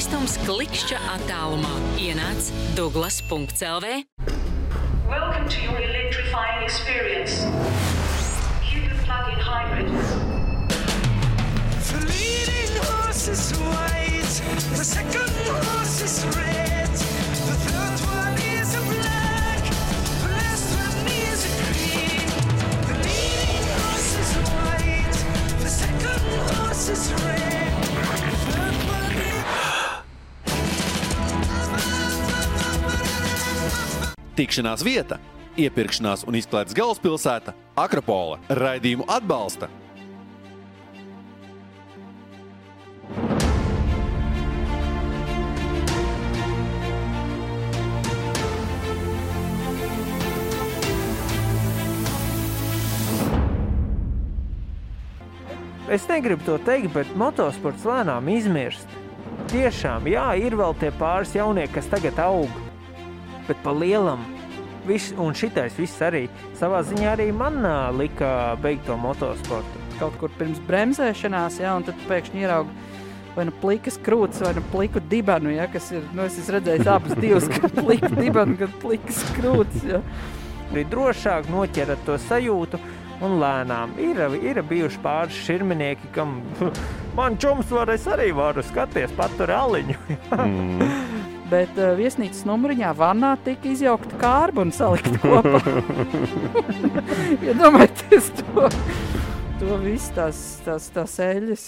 skaistums klikšķa attālumā. Ienāc Douglas.lv. Welcome to your electrifying experience. Cupid plug-in hybrid. The leading horse is white, the second horse is red, the third one is a black, the last one is a green. The leading horse is white, the second horse is red, the third one is... Tikšanās vieta, iepirkšanās un izklaides galvaspilsēta Akropola. Raidījumu atbalsta Es negribu to teikt, bet motosports lēnām izmirst. Tiešām, jā, ir vēl tie pāris jaunieki, kas tagad aug. Bet pa lielam, un šitais viss arī, savā ziņā arī man lika beigt to motosportu. Kaut kur pirms bremzēšanās, jā, un tad pēkšņi ierauga vai nu plikas krūtis, vai nu pliku dibenu, jā, kas ir, es esmu redzējis abas divas, gan pliku dibenu, gan plikas krūtis, jā. Ir drošāk noķerat to sajūtu un lēnām. Ir bijuši pāris širminieki, kam man čums es arī varu skaties, patur aliņu. Bet viesnīcas numuriņā vannā tika izjaukta kārba un salikta kopā. Iedomājieties to visu tās eļas.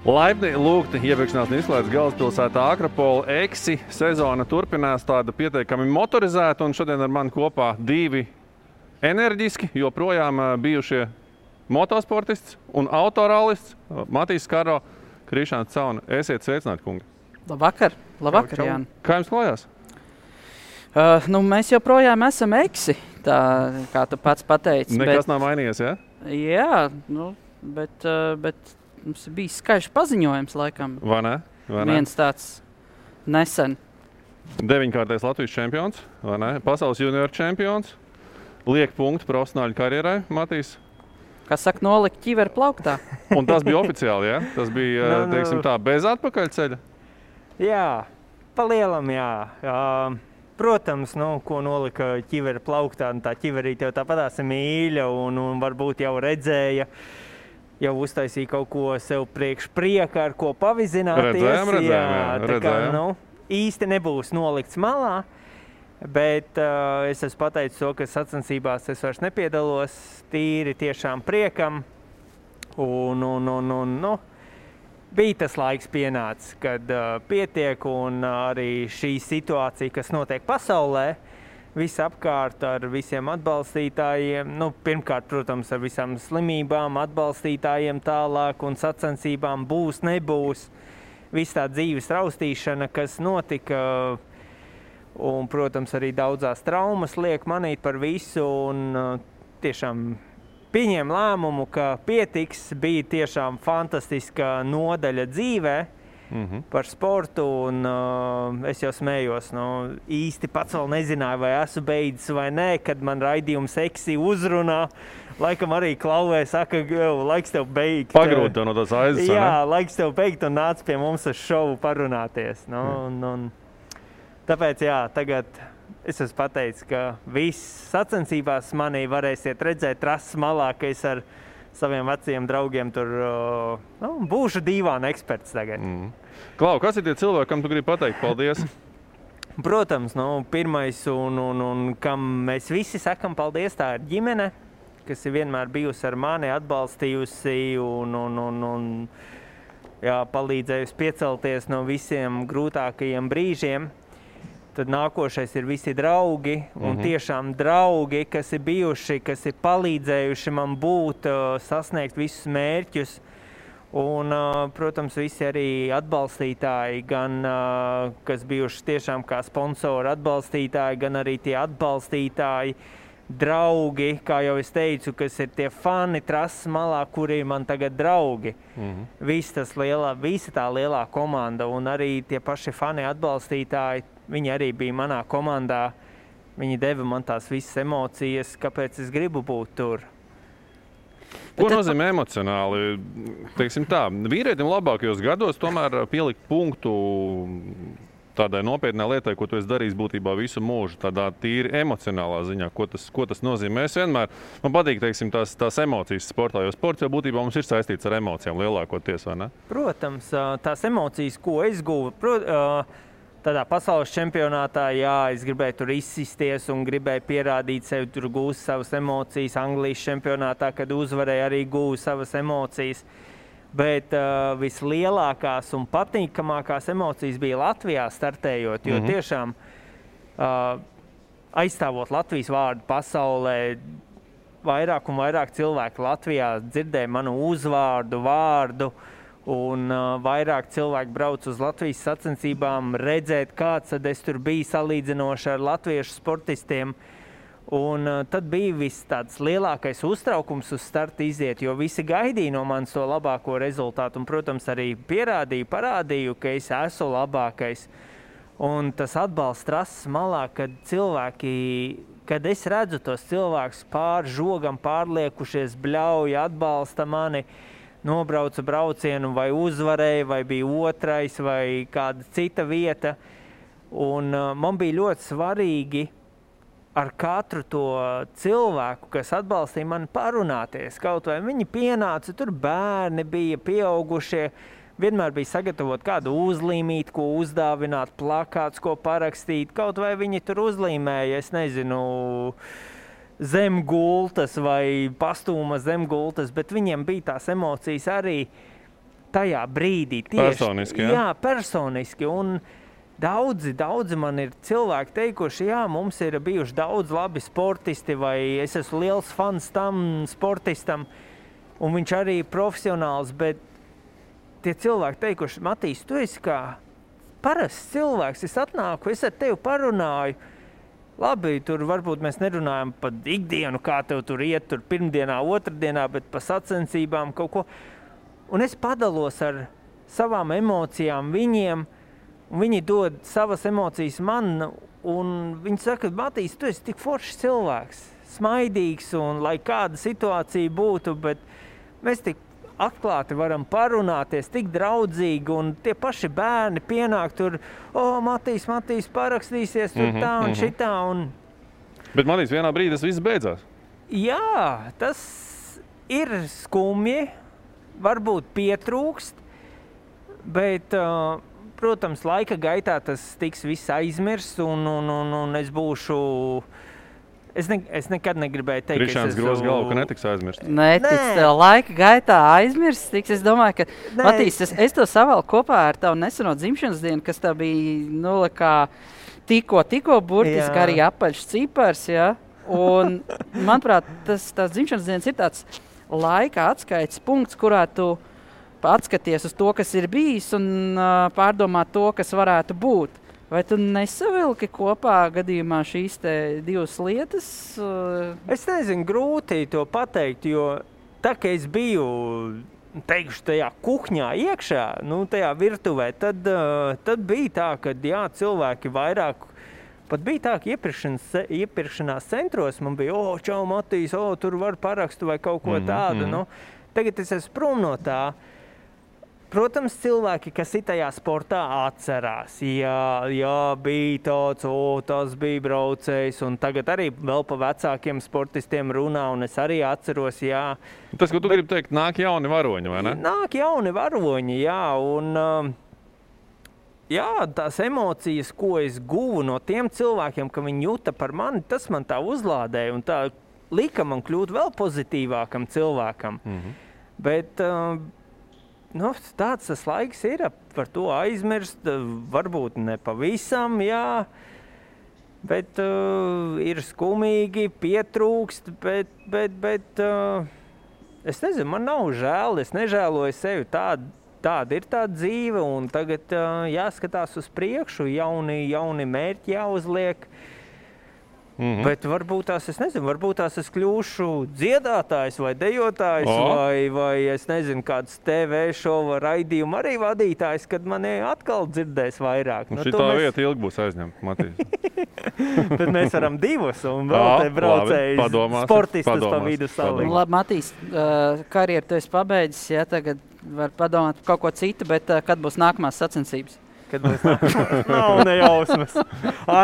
Laipni lūgti iepirkšanās un izklaides galvaspilsētā Akropola. Eksi sezona turpinās tāda pietiekami motorizēta, un šodien ar mani kopā divi enerģiski, joprojām bijušie motosportists un autorallists Matīs Skaro, Krišāns Cauna. Esiet sveicināti, kungi. Labvakar, Jāni. Kā jums klājās? Mēs joprojām esam eksi, tā kā tu pats pateici. Nekas nav mainījies, ja? Jā, bet mums bija skaļš paziņojums, laikam. Vai ne? Viens tāds nesen. 9-kārtais Latvijas čempions, vai ne? Pasaules junioru čempions. Liek punktu profesionāļu karjerai, Matīs. Kas saka, nolikt ķiveru plauktā. Un tas bija oficiāli, ja? Tas bija, teiksim tā, bez atpakaļceļa? Jā, pa lielam, jā. Protams, ko nolika ķiveru plauktā, tā ķiverīte jau tāpatās ir mīļa un varbūt jau redzēja, jau uztaisīja kaut ko sev priekš prieka, ar ko pavizināties. Redzējām. Īsti nebūs nolikts malā, bet es esmu pateicis to, ka sacensībās es vairs nepiedalos, tīri tiešām priekam. Bija tas laiks pienācis, kad pietiek, un arī šī situācija, kas notiek pasaulē, visapkārt ar visiem atbalstītājiem, pirmkārt, protams, ar visām slimībām, atbalstītājiem tālāk un sacensībām būs, nebūs. Viss tā dzīves raustīšana, kas notika, un, protams, arī daudzās traumas liek manīt par visu, un tiešām pieņēma lēmumu, ka pietiks, bija tiešām fantastiska nodaļa dzīvē, par sportu, un es jau smējos. Īsti pats vēl nezināju, vai esmu beidzis vai nē, kad man raidījums Eksi uzrunā. Laikam arī klauvē saka, laiks tev beigt. Pagrūti tev no tās aizes, jā, laiks tev beigt un nāc pie mums uz šovu parunāties. Tāpēc, jā, tagad es esmu pateicis, ka viss sacensībās manī varēsiet redzēt trases malā, ka es ar saviem veciem draugiem tur būšu dīvāna eksperts tagad. Klau, kas ir tie cilvēki, kam tu gribi pateikt paldies? Protams, pirmais un kam mēs visi sakam paldies, tā ir ģimene, kas ir vienmēr bijusi ar mani, atbalstījusi un palīdzējusi piecelties no visiem grūtākajiem brīžiem. Tad nākošais ir visi draugi, un tiešām draugi, kas ir bijuši, kas ir palīdzējuši man būt, sasniegt visus mērķus. Un, protams, visi arī atbalstītāji, gan kas bijuši tiešām kā sponsori atbalstītāji, gan arī tie atbalstītāji, draugi, kā jau es teicu, kas ir tie fani trases malā, kuri ir man tagad draugi. Visa tā lielā komanda un arī tie paši fani atbalstītāji, viņi arī bija manā komandā. Viņi deva man tās visas emocijas, kāpēc es gribu būt tur. Ko nozīmē emocionāli? Teiksim tā, vīrietim labākajos gados tomēr pielikt punktu tādai nopietnai lietai, ko tu esi darījis būtībā visu mūžu, tādā tīri emocionālā ziņā, ko tas nozīmē. Es vienmēr, man patīk, teiksim, tās emocijas sportā, jo sports jau būtībā mums ir saistīts ar emocijām lielākoties, vai ne? Protams, tās emocijas, ko es guvu, tādā pasaules čempionātā, jā, es gribēju tur izsisties un gribēju pierādīt sevi, tur gūst savas emocijas. Anglijas čempionātā, kad uzvarēju, arī gūvu savas emocijas. Bet vislielākās un patīkamākās emocijas bija Latvijā startējot, jo tiešām aizstāvot Latvijas vārdu pasaulē, vairāk un vairāk cilvēku Latvijā dzirdēja manu uzvārdu, vārdu, un vairāk cilvēki brauc uz Latvijas sacensībām redzēt, kāds tad es tur biju salīdzinoši ar latviešu sportistiem. Un tad bija viss tāds lielākais uztraukums uz starta iziet, jo visi gaidīja no manis to labāko rezultātu. Un, protams, arī parādīju, ka es esmu labākais. Un tas atbalsts trases malā, kad es redzu tos cilvēkus pār žogam pārliekušies, bļauja, atbalsta mani, nobrauca braucienu vai uzvarēja, vai bija otrais, vai kāda cita vieta. Un man bija ļoti svarīgi ar katru to cilvēku, kas atbalstīja mani, parunāties. Kaut vai viņi pienāca, tur bērni bija, pieaugušie, vienmēr bija sagatavot kādu uzlīmīt, ko uzdāvināt, plakāts, ko parakstīt. Kaut vai viņi tur uzlīmēja, es nezinu, zem gultas vai pastūma zem gultas, bet viņiem bija tās emocijas arī tajā brīdī. Personiski, jā? Jā, personiski. Un daudzi man ir cilvēki teikuši, jā, mums ir bijuši daudz labi sportisti, vai es esmu liels fans tam sportistam, un viņš arī ir profesionāls, bet tie cilvēki teikuši, Matīs, tu esi kā parasts cilvēks, es atnāku, es ar tevi parunāju. Labi, tur varbūt mēs nerunājam par ikdienu, kā tev tur iet, tur pirmdienā, otrdienā, bet par sacensībām kaut ko. Un es padalos ar savām emocijām viņiem, un viņi dod savas emocijas man, un viņi saka, Matīs, tu esi tik foršs cilvēks, smaidīgs, un lai kāda situācija būtu, bet mēs tik atklāti varam parunāties, tik draudzīgi, un tie paši bērni pienāk tur, Matīs, parakstīsies tur tā un šitā. Bet Matīs, vienā brīdī tas viss beidzās. Jā, tas ir skumji, varbūt pietrūkst, bet, protams, laika gaitā tas tiks viss aizmirsts, un es būšu... Es nekad negribēju teikt, Krišāns groz galvu, ka netiks aizmirsts. Netiks, laika gaitā aizmirsts tiks. Es domāju, ka, Matīs, es to savalku kopā ar tavu neseno dzimšanas dienu, kas tā bija, kā tikko burtiski arī apaļš cipars, ja? Un, manuprāt, tās dzimšanas dienas ir tāds laika atskaites punkts, kurā tu atskaties uz to, kas ir bijis, un pārdomā to, kas varētu būt. Vai tu nesavilki kopā gadījumā šīs te divas lietas? Es nezinu, grūti to pateikt, jo tā, ka es biju, teikšu, tajā kuhņā iekšā, tajā virtuvē, tad bija tā, ka jā, cilvēki vairāk, pat bija tā, ka iepirkšanās centros man bija, čau, Matīs, tur var parakstu vai kaut ko tādu. Tagad es esmu prom no tā. Protams, cilvēki, kas ir tajā sportā, atcerās. Jā, bija tāds, tas bija braucējs, un tagad arī vēl pa vecākiem sportistiem runā, un es arī atceros, jā. Tas, ko tu gribi teikt, nāk jauni varoņi, vai ne? Nāk jauni varoņi, jā, un jā, tās emocijas, ko es guvu no tiem cilvēkiem, ka viņi jūta par mani, tas man tā uzlādēja, un tā lika man kļūt vēl pozitīvākam cilvēkam. Bet... tāds tas laiks ir, par to aizmirst, varbūt ne pavisam, jā, bet ir skumīgi, pietrūkst, bet es nezinu, man nav žēl, es nežēloju sevi, tāda ir tā dzīve, un tagad jāskatās uz priekšu, jauni mērķi jāuzliek, Bet varbūt tās, es nezinu, varbūt tās es kļūšu dziedātājs vai dejotājs vai es nezinu, kāds TV šova raidījumu arī vadītājs, kad mani atkal dzirdēs vairāk. Šitā vieta ilgi būs aizņemta, Matīs. Bet mēs varam divus un vēl te braucējus sportistus pa vidu salikt. Labi, Matīs, karjeru tu esi pabeidzis, ja tagad var padomāt par kaut ko citu, bet kad būs nākamās sacensības? Kad būs nākamās? Nav nejausmas.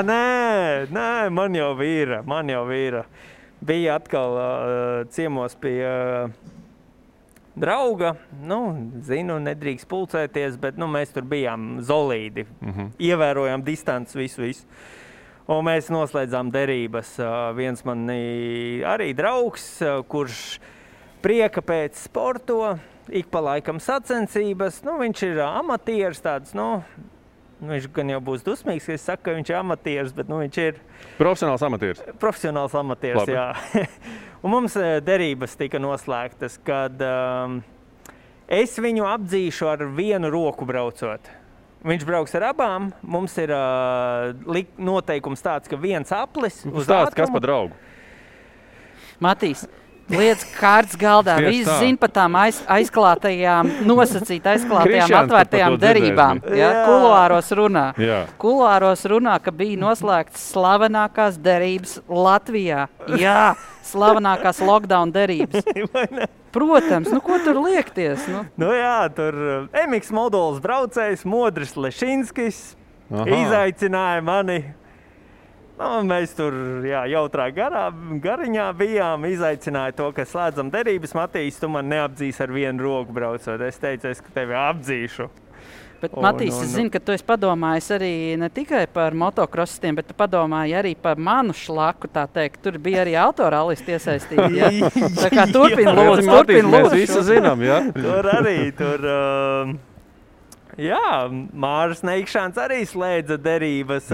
Nē, man jau vīra. Bija atkal ciemos pie drauga. Zinu, nedrīkst pulcēties, bet mēs tur bijām zolīdi. Ievērojām distanci visu. Un mēs noslēdzām derības. Viens man arī draugs, kurš prieka pēc sporto, ik pa laikam sacensības. Viņš ir amatieris tāds, viņš gan jau būs dusmīgs, ka es saku, ka viņš ir amatieris, bet viņš ir... Profesionāls amatieris. Profesionāls amatieris, labi. Jā. Un mums derības tika noslēgtas, kad es viņu apdzīšu ar vienu roku braucot. Viņš brauks ar abām. Mums ir noteikums tāds, ka viens aplis uz ātrumu. Kas pa draugu? Matīs. Lietas kārtas galdā. Visi zina par tām aizklātajām, atvērtajām derībām. Ja? Kuluāros runā, ka bija noslēgts slavenākās derības Latvijā. Jā, slavenākās lockdown derības. Protams, ko tur liekties? Jā, tur Emiks Moduls braucējs, Modris Lešinskis izaicināja mani. Mēs tur jautrā gariņā bijām, izaicināja to, ka slēdzam derības. Matīs, tu man neapdzīs ar vienu roku braucot. Es teicu, ka tevi apdzīšu. Bet, Matīs, es zinu, ka tu esi padomājis arī ne tikai par motokrosistiem, bet tu padomāji arī par manu šlaku, tā teikt. Tur bija arī autoralisti iesaistīti, ja? Tā kā turpin lūdzu. Mēs visu zinām, ja? Tur arī, Māris Neikšāns arī slēdza derības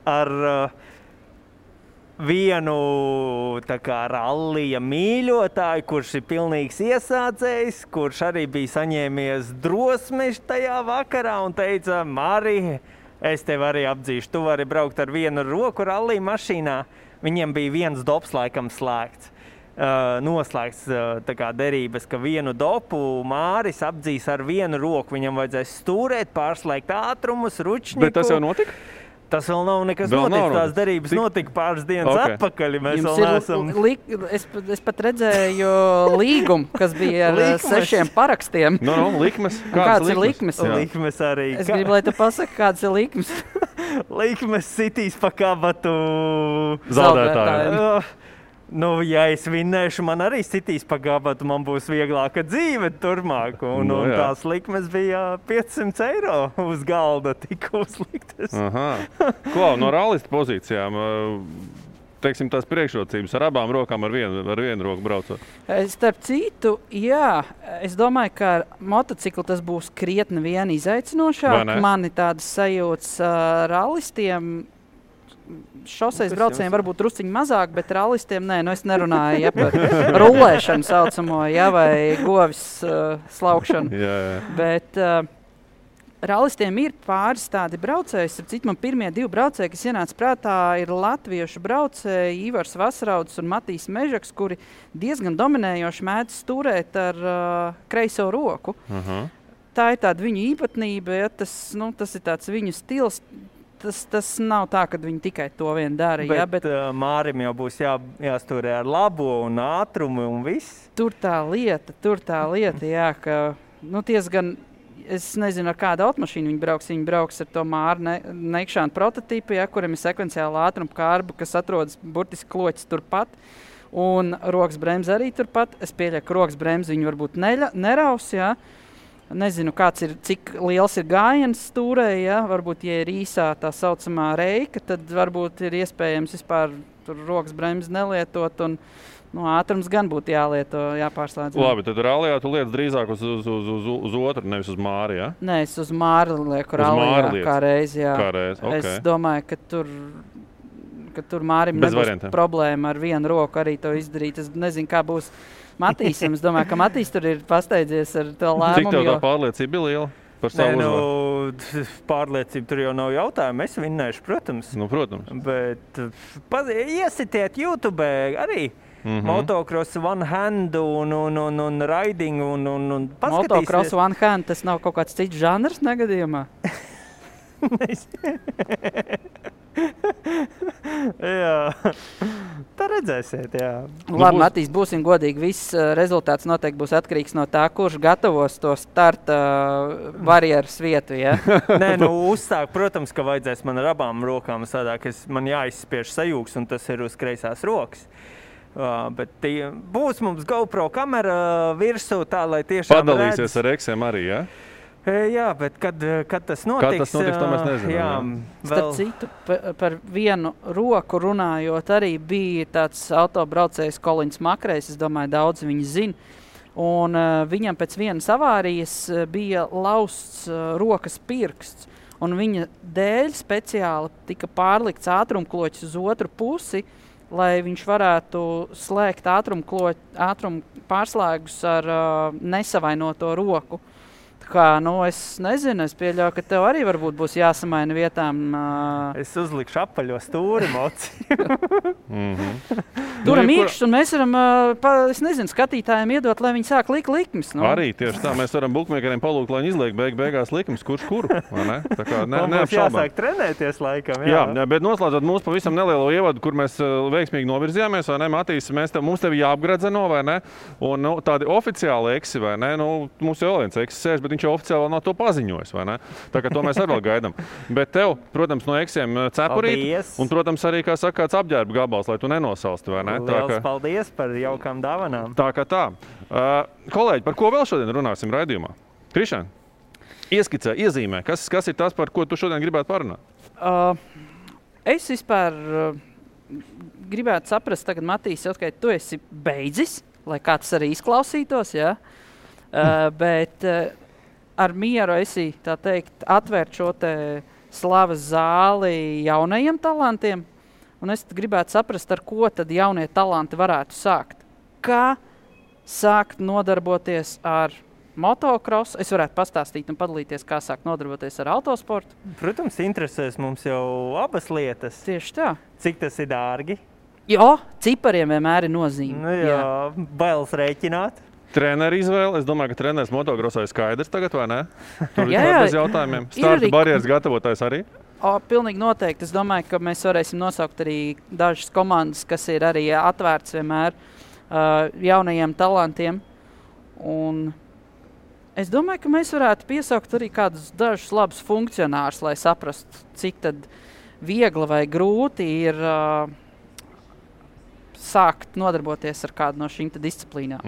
ar vienu rallija mīļotāju, kurš ir pilnīgs iesācējs, kurš arī bija saņēmies drosmi tajā vakarā un teica, Mari, es tevi arī apdzīšu, tu vari braukt ar vienu roku rallija mašīnā. Viņiem bija viens dops laikam slēgts. Noslēgts derības, ka vienu dopu Māris apdzīs ar vienu roku. Viņam vajadzēs stūrēt, pārslēgt ātrumus, ručņiku. Bet tas jau notika? Tas vēl nav nekas noticis. Tās derības notika pāris dienas atpakaļ. Es pat redzēju līgumu, kas bija ar 6 parakstiem. Likmes. Kāds ir likmes? Likmes arī. Es gribu, lai tu pasaki, kāds ir likmes. Likmes sitīs pa kabatu zaudētāju. Ja es vinnēšu, man arī sitīs pa gabatu, man būs vieglāka dzīve turmāk. Un tās likmes bija 500 eiro uz galda tika uzliktas. No rallista pozīcijām, teiksim, tās priekšrocības ar abām rokām, ar vienu roku braucot? Starp citu, jā, es domāju, ka ar motociklu tas būs krietni vien izaicinošāk. Mani tādas sajūtas rallistiem. Šoseis braucējiem varbūt drusciņi mazāk, bet rallistiem nē, es nerunāju par rulēšanu saucamo, vai govis slaukšanu. Bet rallistiem ir pāris tādi braucēji. Cik man pirmie 2 braucēji, kas ienāca prātā, ir latviešu braucēji Ivars Vasrauds un Matīs Mežaks, kuri diezgan dominējoši mēdz stūrēt ar kreiso roku. Tā ir tāda viņu īpatnība, tas ir tāds viņu stils. Tas nav tā, ka viņi tikai to vien dara. Bet Mārim jau būs jāstūrē ar labo un ātrumu un viss. Tur tā lieta, jā, ka diezgan, es nezinu, ar kādu automašīnu viņi brauks ar to Māra Neikšāna prototipu, kuram ir sekvenciāla ātruma kārba, kas atrodas burtiski kloķis turpat. Un rokas bremze arī turpat. Es pieļauju, ka rokas bremze viņi varbūt neraus, jā. Nezinu, cik liels ir gājiens stūrē, varbūt, ja ir īsā tā saucamā reika, tad varbūt ir iespējams vispār rokas bremzi nelietot un ātrums gan būtu jāpārslēdz. Labi, tad rallijā tu lietas drīzāk uz otru, nevis uz Māri, ja? Nē, es uz Māri lieku rallijā kā reizi, jā. Okay. Es domāju, ka tur Mārim nebūs problēma ar vienu roku arī to izdarīt. Es nezinu, kā būs Matīsam. Es domāju, ka Matīs tur ir pasteidzies ar to lēmumu. Cik tev tā pārliecība bija liela? par savu uzvaru? Pārliecība tur jau nav jautājuma. Es vinnēšu, protams. Nu, protams. Bet iesitiet YouTube arī. Motocross one hand un riding un paskatīsies. Motocross one hand, tas nav kaut kāds cits žanrs negadījumā? Jā, tā redzēsiet, jā. Labi, Matīs, būsim godīgi, viss rezultāts noteikti būs atkarīgs no tā, kurš gatavos to starta barjeras vietu, ja? Nē, uzsāk, protams, ka vajadzēs man ar abām rokām sadāk, man jāizspiež sajūgs, un tas ir uz kreisās rokas. Bet būs mums GoPro kamera virsū tā, lai tiešām padalīsies ar eksiem arī, ja? Jā, bet kad tas notiks? Kad tas notiks, to mēs nezinām. Jā, starp citu, par vienu roku runājot, arī bija tāds autobraucējs Kolins Makrejs, es domāju, daudz viņi zina. Un viņam pēc vienas avārijas bija lausts rokas pirksts. Un viņa dēļ speciāli tika pārlikts ātrumkloķis uz otru pusi, lai viņš varētu slēgt ātrumu pārslēgus ar nesavainoto roku. Kā, es nezinu, es pieļauju, ka tev arī varbūt būs jāsamaina vietām. Es uzlikšu apaļo stūri mociju. Turam īkšķus, un mēs varam, es nezinu, skatītājiem iedot, lai viņi sāk likt likmes. Arī tieši tā, mēs varam bukmēkeriem palūgt, lai viņi izliek beigās likmes, kurš kuru, vai ne? Tā kā mums jāsāk trenēties laikam, jā. Jā, bet noslēdzot mūsu pavisam nelielo ievadu, kur mēs veiksmīgi novirzījāmies, vai ne, Matīs, mums tevi jāapgradzeno, vai ne? Un tādi oficiāli eksi, vai ne? Mums jau vēl viens eksis sēž, bet viņš jau oficiāli nav to paziņojis, vai ne? Tā kā to mēs arī vēl gaidām. Bet tev, protams, no eksiem cepurīt, un, protams, arī, kā saka, kāds apģērba gabals, lai tu nenosalsti, vai ne? Liels paldies par jaukām dāvanām. Tā kā tā. Kolēģi, par ko vēl šodien runāsim raidījumā? Krišān, ieskicē, iezīmē, kas ir tas, par ko tu šodien gribētu parunāt? Es vispār gribētu saprast, tagad, Matīs, ka tu esi beidzis, lai kā tas arī izklausītos, ja? Bet ar mieru esi, tā teikt, atvērt šo te slavas zāli jaunajiem talantiem. Un es gribētu saprast, ar ko tad jaunie talanti varētu sākt. Kā sākt nodarboties ar motocross? Es varētu pastāstīt un padalīties, kā sākt nodarboties ar autosportu. Protams, interesēs mums jau abas lietas. Tieši tā. Cik tas ir dārgi? Jā, cipariem vienmēr ir nozīme. Jā, bailes rēķināt. Treneru izvēle. Es domāju, ka treneris motocrossā ir skaidrs tagad, vai ne? Tur ir bez jautājumiem. Starta barjeras gatavotājs arī? Pilnīgi noteikti. Es domāju, ka mēs varēsim nosaukt arī dažas komandas, kas ir arī atvērts vienmēr jaunajiem talantiem. Un es domāju, ka mēs varētu piesaukt arī kādus dažus labus funkcionārus, lai saprastu, cik tad viegli vai grūti ir sākt nodarboties ar kādu no šīm disciplīnām.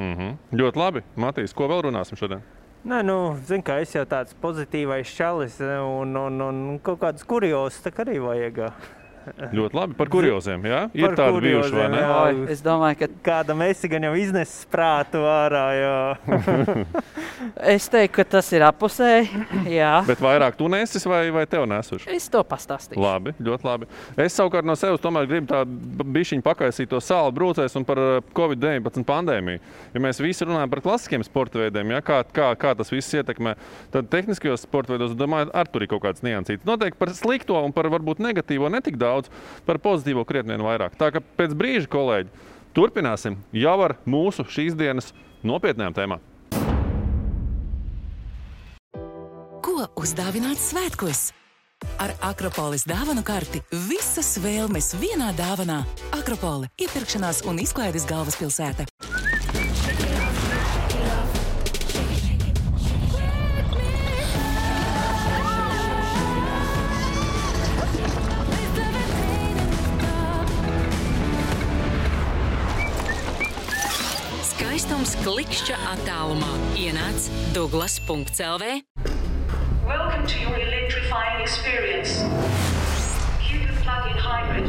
Ļoti labi. Matīs, ko vēl runāsim šodien? Nē, zinu, ka es jau tāds pozitīvais čalis un kaut kādus kuriozus tā arī vajag. Ļoti labi. Par kurioziem, jā? Ir tādi bijuši, vai ne? Jā, es domāju, ka kādam esi gan jau iznesis prātu ārā, jā. Es teiktu, ka tas ir apusēji, jā. Bet vairāk tu nesis vai tev nesuši? Es to pastāstīšu. Labi, ļoti labi. Es savukārt no sevis tomēr gribu tādu bišķiņu pakaisīt to sāli brūcēs un par Covid-19 pandēmiju. Ja mēs visi runājam par klasiskiem sporta veidiem, ja, kā tas viss ietekmē, tad tehniskajos sporta veidos, domāju, ar tur ir kaut kāds niansīts. Noteikti par slikto un par varbūt negatīvo netik daudz, par pozitīvo krietni vien vairāk. Tā ka pēc brīža, kolēģi, turpināsim jau ar mūsu šīs dienas nopietnējām tēmām. Ko uzdāvināt svētkos? Ar Akropolis dāvanu karti visas vēlmes vienā dāvanā. Akropole – iepirkšanās un izklaides galvaspilsēta. Skaistums klikšķa attālumā. Ienāc Douglas.lv. Welcome to your electrifying experience. Cupid plug-in hybrid.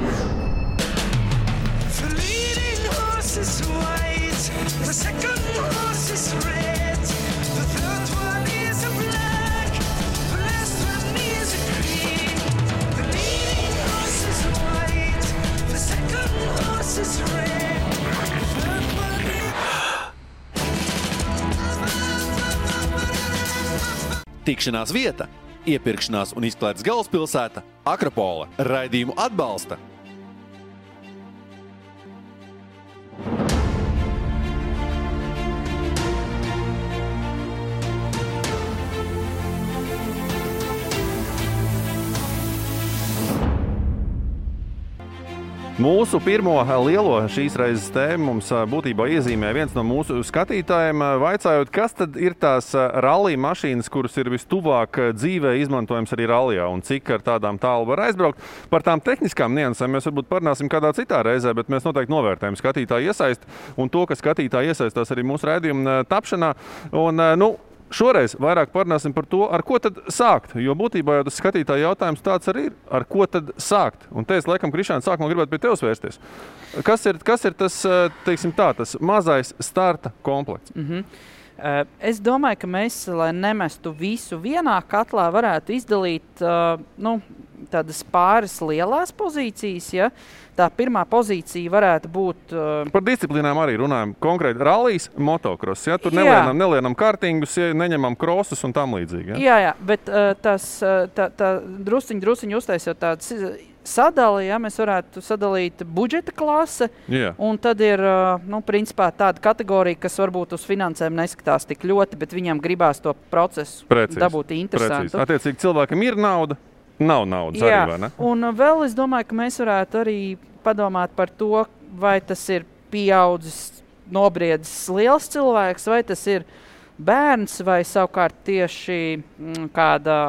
The leading horse is white, the second horse is red, the third one is a black, the last one is a green. The leading horse is white, the second horse is red, the third one is... Tikšanās vieta, iepirkšanās un izklaides galvaspilsēta Akropola. Raidījumu atbalsta Mūsu pirmo lielo šīs reizes tēmu mums būtībā iezīmē viens no mūsu skatītājiem, vaicājot, kas tad ir tās rallija mašīnas, kuras ir vistuvāk dzīvē izmantojams arī rallijā un cik ar tādām tālu var aizbraukt. Par tām tehniskām niansēm mēs varbūt parunāsim kādā citā reizē, bet mēs noteikti novērtējam skatītāju iesaisti un to, ka skatītāji iesaistās arī mūsu raidījuma tapšanā. Un, šoreiz vairāk parunāsim par to, ar ko tad sākt, jo būtībā jau tas skatītāja jautājums tāds arī ir, ar ko tad sākt. Un te es laikam, Krišāna, sākumā gribētu pie tevis vērsties. Kas ir tas, teiksim tā, tas mazais starta komplekts? Es domāju, ka mēs, lai nemestu visu vienā katlā, varētu izdalīt tādas pāris lielās pozīcijas. Ja? Tā pirmā pozīcija varētu būt... Par disciplīnām arī runājam. Konkrēti rallijas, motocross. Ja? Tur nelienam kartingus, neņemam krosus un tam līdzīgi. Ja? Jā, bet tā drusciņi uztaisot tādas sadali, ja? Mēs varētu sadalīt budžeta klase. Un tad ir, principā tāda kategorija, kas varbūt uz finansēm neskatās tik ļoti, bet viņam gribās to procesu dabūt interesantu. Attiecīgi cilvēkam ir nauda. Nav naudas arī, vai ne? Un vēl es domāju, ka mēs varētu arī padomāt par to, vai tas ir pieaudzis, nobriedzis liels cilvēks, vai tas ir bērns, vai savukārt tieši kāda,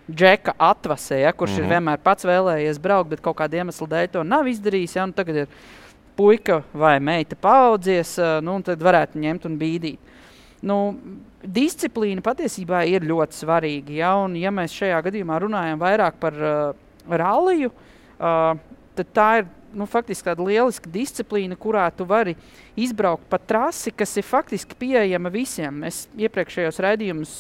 džeka atvasē, ja, kurš ir vienmēr pats vēlējies braukt, bet kaut kāda iemesla dēļ to nav izdarījis, ja, un tagad ir puika vai meita paaudzies, un tad varētu ņemt un bīdīt. Disciplīna patiesībā ir ļoti svarīga, ja, un ja mēs šajā gadījumā runājam vairāk par ralliju, tad tā ir faktiski tāda lieliska disciplīna, kurā tu vari izbraukt pa trasi, kas ir faktiski pieejama visiem. Mēs iepriekšējos raidījumus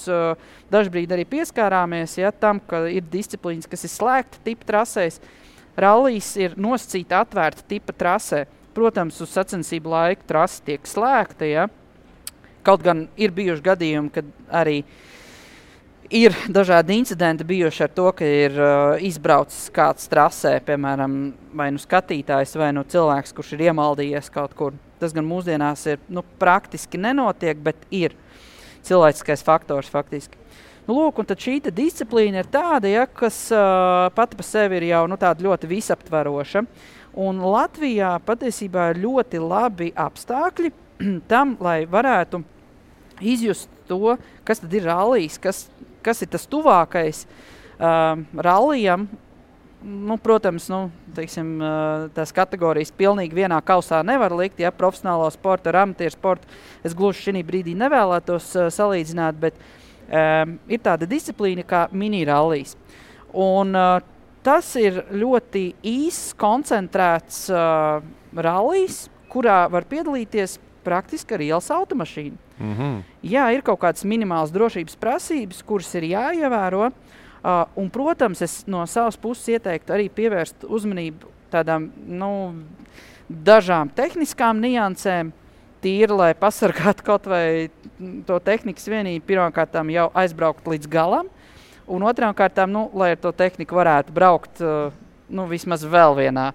dažbrīd arī pieskārāmies, ja, tam, ka ir disciplīnas, kas ir slēgta tipa trasēs. Rallijas ir nosacīta atvērta tipa trasē. Protams, uz sacensību laiku trasa tiek slēgta, ja. Kaut gan ir bijuši gadījumi, kad arī ir dažādi incidenti bijuši ar to, ka ir izbraucis kāds trasē, piemēram, vai skatītājs, vai cilvēks, kurš ir iemaldījies kaut kur. Tas gan mūsdienās ir praktiski nenotiek, bet ir cilvēciskais faktors faktiski. Lūk, un tad šī disciplīna ir tāda, ja, kas pati pa sevi ir jau tāda ļoti visaptveroša. Un Latvijā patiesībā ir ļoti labi apstākļi tam, lai varētu izjust to, kas tad ir rallijs, kas ir tas tuvākais rallijam. Protams, teiksim, tās kategorijas pilnīgi vienā kausā nevar likt, ja profesionālo sportu ar amatieru sportu. Es gluži šī brīdī nevēlētos salīdzināt, bet ir tāda disciplīna kā mini-rallijs. Un tas ir ļoti īss, koncentrēts rallijs, kurā var piedalīties praktiski ar ielas automašīnu. Jā, ir kaut kādas minimālas drošības prasības, kuras ir jāievēro. Un, protams, es no savas puses ieteiktu arī pievērst uzmanību tādām dažām tehniskām niansēm, tīri, lai pasargātu kaut vai to tehnikas vienību, pirmkārtām jau aizbraukt līdz galam, un otrām kārtām, lai ar to tehniku varētu braukt vismaz vēl vienā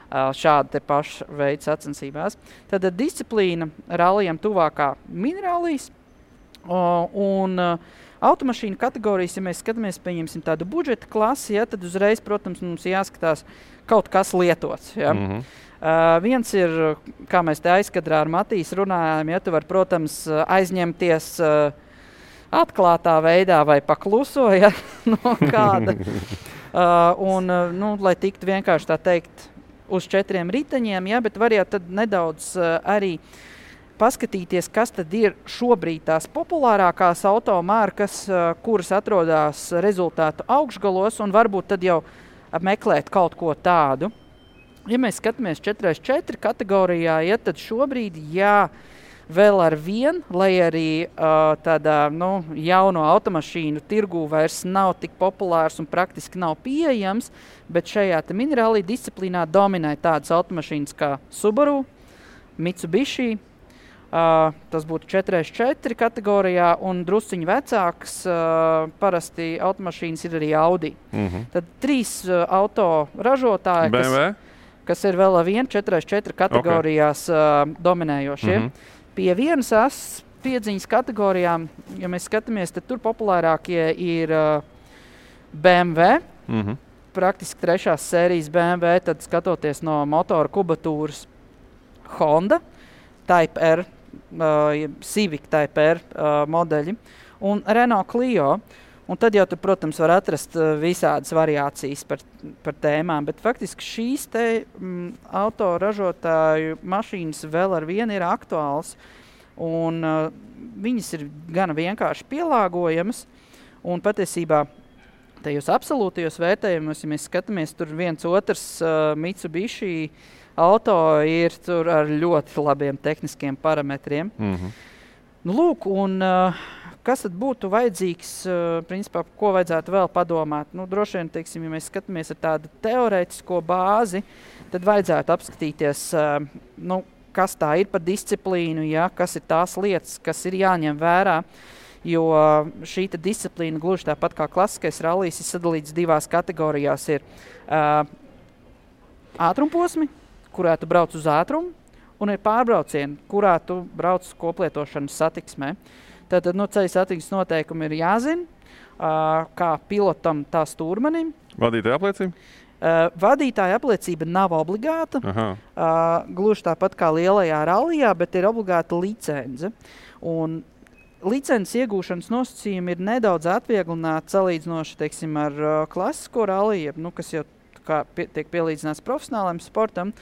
šāda te paša veida sacensībās. Tad disciplīna rallijam tuvākā mini-rallijas un automašīnu kategorijas, ja mēs skatāmies, pieņemsim tādu budžeta klasi, ja, tad uzreiz, protams, mums jāskatās kaut kas lietots. Ja. Viens ir, kā mēs te aizkadrā ar Matīs runājām, ja, tu var, protams, aizņemties atklātā veidā vai pakluso, ja, no kāda. Lai tiktu vienkārši tā teikt, uz 4 riteņiem, ja, bet var jau tad nedaudz arī paskatīties, kas tad ir šobrīd tās populārākās automārkas, kuras atrodas rezultātu augšgalos, un varbūt tad jau meklēt kaut ko tādu. Ja mēs skatāmies 4x4 kategorijā, ja, tad šobrīd, vēl ar vienu, lai arī tādā jauno automašīnu tirgū vairs nav tik populārs un praktiski nav pieejams, bet šajā mini-rallija disciplīnā dominē tādas automašīnas kā Subaru, Mitsubishi, Tas būtu 4x4 kategorijā, un drusciņi vecāks parasti automašīnas ir arī Audi. Tad 3 auto ražotāji, kas ir vēl ar 4x4 kategorijās dominējošie. Pie vienas asas piedziņas kategorijām, ja mēs skatāmies, tad tur populārākie ir BMW, praktiski 3. sērijas BMW, tad skatoties no motora kubatūras Honda, Type R, Civic Type R modeļi un Renault Clio. Un tad jau tur, protams, var atrast visādas variācijas par tēmām, bet faktiski šīs te autoražotāju mašīnas vēl ar vienu ir aktuāls, un viņas ir gana vienkārši pielāgojamas, un patiesībā tajos absolūtajos vērtējumos, ja mēs skatāmies, tur viens otrs Mitsubishi auto ir tur ar ļoti labiem tehniskiem parametriem. Nu, lūk, un kas tad būtu vajadzīgs, principā, ko vajadzētu vēl padomāt? Nu, droši vien, teiksim, ja mēs skatāmies ar tādu teorētisko bāzi, tad vajadzētu apskatīties, nu, kas tā ir par disciplīnu, ja, kas ir tās lietas, kas ir jāņem vērā, jo šī disciplīna gluži tāpat kā klasiskais rallijs ir sadalīts 2 kategorijās. Ir ātrumposmi, kurā tu brauc uz ātrumu, un ir pārbraucieni, kurā tu brauc koplietošanas satiksmē. Tātad ceļa satiksmes noteikumi ir jāzina, kā pilotam, tā stūrmanim. Vadītāja apliecība? Vadītāja apliecība nav obligāta, gluži tāpat kā lielajā rallijā, bet ir obligāta licence. Un licences iegūšanas nosacījumi ir nedaudz atvieglināti salīdzinoši, teiksim, ar klasisko ralliju, kas jau tiek pielīdzināts profesionālajam sportam.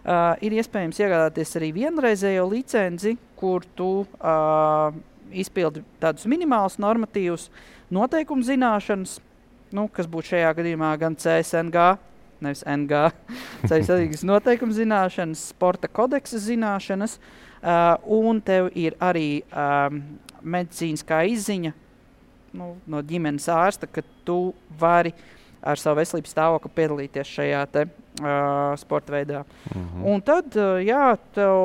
Ir iespējams iegādāties arī vienreizējo licenci, kur tu izpildi tādus minimālus normatīvus noteikumu zināšanas, kas būtu šajā gadījumā gan CSNG, nevis NG, ceļu satiksmes noteikumu zināšanas, sporta kodeksa zināšanas, un tev ir arī medicīniskā izziņa no ģimenes ārsta, ka tu vari ar savu veselības stāvokli piedalīties šajā te sporta veidā. Un tad, tev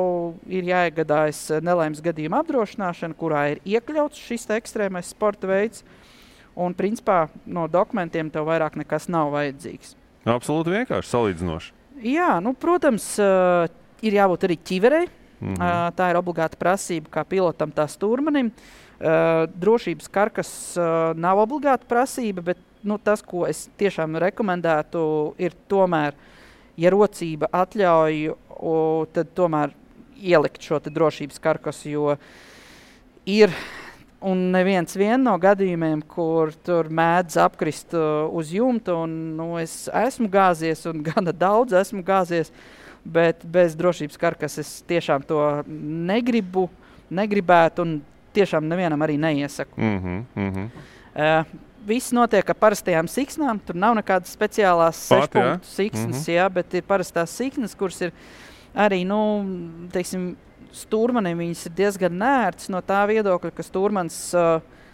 ir jāiegādājas nelaimes gadījuma apdrošināšana, kurā ir iekļauts šis ekstrēmais sporta veids, un principā no dokumentiem tev vairāk nekas nav vajadzīgs. Absolūti vienkārši, salīdzinoši. Jā, protams, ir jābūt arī ķiverei. Tā ir obligāta prasība kā pilotam, tā stūrmanim. Drošības karkas nav obligāta prasība, bet tas, ko es tiešām rekomendētu, ir tomēr, ja rocība atļauj, tad tomēr ielikt šo te drošības karkasu, jo ir un neviens no gadījumiem, kur tur mēdz apkrist uz jumta, un es esmu gāzies, un gana daudz esmu gāzies, bet bez drošības karkas es tiešām to negribētu, un tiešām nevienam arī neiesaku. Viss notiek ar parastajām siksnām, tur nav nekādas speciālās 6 punktu siksnas, bet ir parastās siksnas, kuras ir arī, teiksim, stūrmanim viņas ir diezgan nērtas no tā viedokļa, ka stūrmans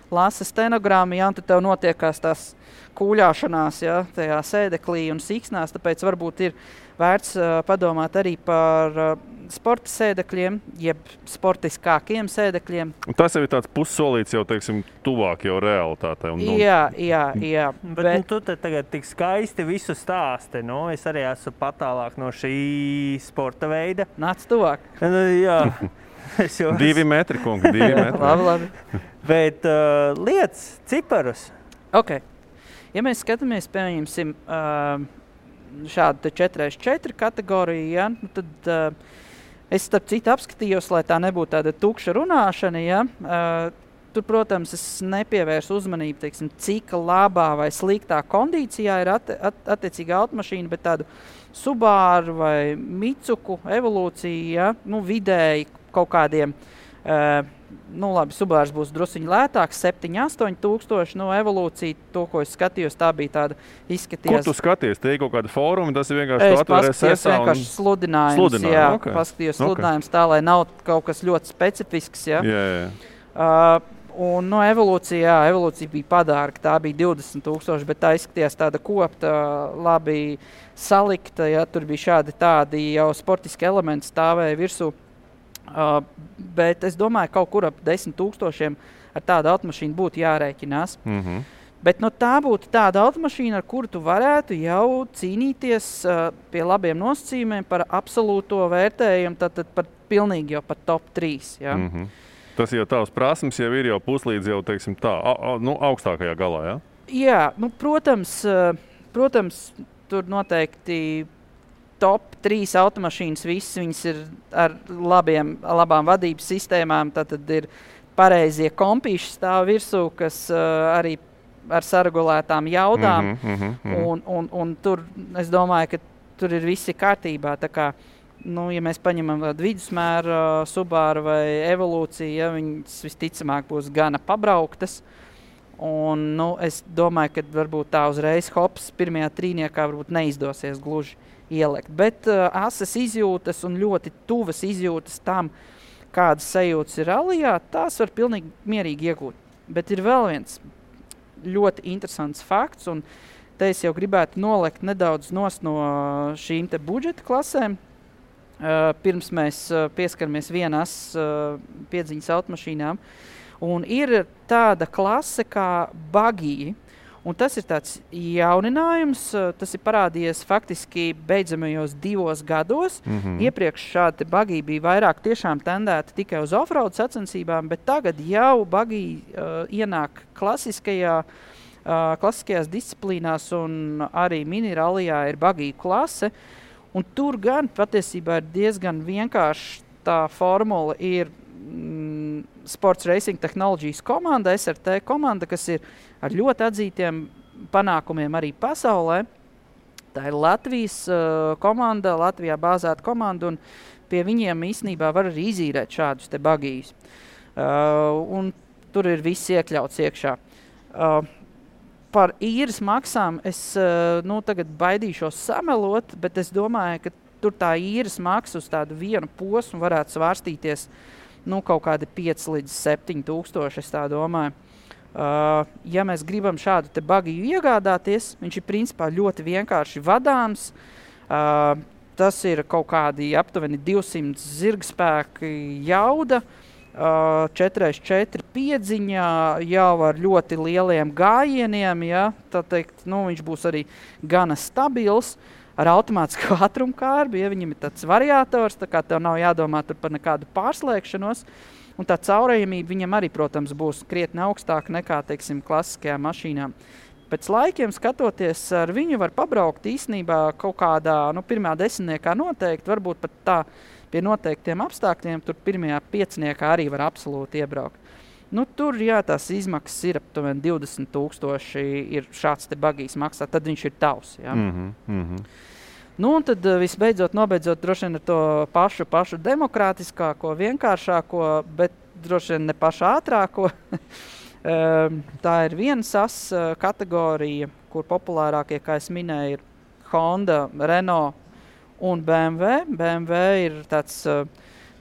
lasa stenogrammu, un tad tev notiekās tās kūļāšanās, tajā sēdeklī un siksnās, tāpēc varbūt ir vērts padomāt arī par sporta sēdekļiem, jeb sportiskākiem sēdekļiem. Un tas jau ir tāds pussolīts jau, teiksim, tuvāk jau realitātei. Jā. Bet tu te tagad tik skaisti visu stāsti, es arī esmu patālāk no šī sporta veida. Nāc tuvāk. Jā. 2 metri, kungi, 2 metri. Labi. Bet lietas, ciparus. Ok. Ja mēs skatāmies, pieņemsim, šādu 4x4 kategoriju, tad es starp citu apskatījos, lai tā nebūtu tāda tukša runāšana. Tur, protams, es nepievērsu uzmanību, teiksim, cik labā vai sliktā kondīcijā ir attiecīga automašīna, bet tādu Subaru vai Mitsuku evolūciju, vidēji kaut kādiem, labi, Subārs būs drusciņi lētāks, 7-8 tūkstoši, evolūcija, to, ko es skatījos, tā bija tāda izskatījās. Kur tu skaties? Te ir kaut kāda fóruma, tas ir vienkārši tu atvēries SSA? Es vienkārši sludinājums, paskatījos sludinājums tā, lai nav kaut kas ļoti specifisks, un evolūcija bija padārga, tā bija 20,000, bet tā izskatījās tāda kopta, labi salikta, tur bija šādi tādi jau sportiski elementi stāvēja virsū. Bet es domāju, kaut kur ap 10 000 ar tādu automašīnu būtu jārēķinās. Bet tā būtu tāda automašīna, ar kuru tu varētu jau cīnīties pie labiem nosacījumiem par absolūto vērtējumu, tad par pilnīgi jau par top 3. Ja? Tas jau tavs prasmes jau ir jau puslīdz jau, teiksim tā, augstākajā galā, ja? Jā, protams, tur noteikti top 3 automašīnas, visas viņas ir ar labām vadības sistēmām, tad ir pareizie kompīši stāv virsū, kas arī ar saregulētām jaudām, un tur, es domāju, ka tur ir visi kārtībā, tā kā, ja mēs paņemam vidusmēra Subaru vai Evolūciju, ja, viņas visticamāk būs gana pabrauktas, un, es domāju, ka varbūt tā uzreiz hops pirmajā trīniekā varbūt neizdosies gluži ielikt, bet asas izjūtas un ļoti tuvas izjūtas tam, kādas sajūtas ir rallijā, tās var pilnīgi mierīgi iegūt. Bet ir vēl viens ļoti interesants fakts, un te es jau gribētu nolikt nedaudz nost no šīm te budžeta klasēm. Pirms mēs pieskaramies vienas piedziņas automašīnām. Un ir tāda klase kā buggy, un tas ir tāds jauninājums, tas ir parādījies faktiski beidzamajos 2 gados. Iepriekš šādi buggy bija vairāk tiešām tendēti tikai uz offroad sacensībām, bet tagad jau buggy ienāk klasiskajās disciplīnās, un arī mini-rallijā ir buggy klase. Un tur gan patiesībā ir diezgan vienkārši tā formula ir Sports Racing Technologies komanda, SRT komanda, kas ir ar ļoti atzītiem panākumiem arī pasaulē. Tā ir Latvijas komanda, Latvijā bāzēta komanda, un pie viņiem īstenībā var arī izīrēt šādus te bagījus. Un tur ir viss iekļauts iekšā. Par īres maksām es tagad baidīšos samelot, bet es domāju, ka tur tā īres maksa uz tādu vienu posmu varētu svārstīties kaut kādi 5 līdz 7 tūkstoši, es tā domāju. Ja mēs gribam šādu te bagiju iegādāties, viņš ir principā ļoti vienkārši vadāms. Tas ir kaut kādi aptuveni 200 zirgspēki jauda, 4x4 piedziņā, jau ar ļoti lieliem gājieniem, ja, tā teikt, viņš būs arī gana stabils, ar automātisku ātrumkārbi, ja viņam ir tāds variators, tā kā tev nav jādomā tur par nekādu pārslēgšanos, un tā caurējamība viņam arī, protams, būs krietni augstāka nekā, teiksim, klasiskajām mašīnām. Pēc laikiem skatoties, ar viņu var pabraukt īstenībā kaut kādā, pirmā 10. noteikti, varbūt pat tā pie noteiktiem apstākļiem, tur pirmajā 5. arī var absolūti iebraukt. Tur, jā, tās izmaksas ir aptuveni 20 000 ir šāds te bagijs maksā, tad viņš ir tavs, jā. Un tad visbeidzot, nobeidzot droši vien ar to pašu demokrātiskāko, vienkāršāko, bet droši vien ne pašu ātrāko. Tā ir viena SAS kategorija, kur populārākie, kā es minēju, ir Honda, Renault un BMW. BMW ir tāds,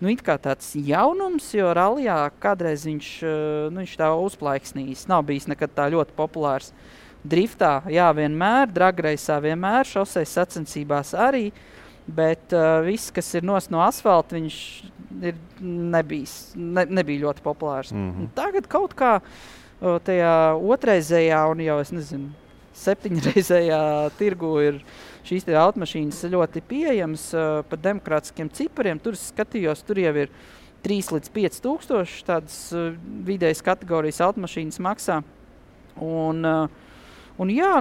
it kā tāds jaunums, jo rallijā kādreiz viņš tā uzplaiksnījis. Nav bijis nekad tā ļoti populārs. Driftā, jā, vienmēr, dragreisā vienmēr, šoseis sacensībās arī, bet viss, kas ir no asfalta, viņš nebija ļoti populārs. Tagad kaut kā tajā otrreizējā un jau, es nezinu, 7-reizējā tirgu ir šīs te automašīnas ļoti pieejamas par demokrātiskiem cipariem. Tur es skatījos, tur jau ir 3 līdz 5 tūkstoši tādas vidējas kategorijas automašīnas maksā. Un jā,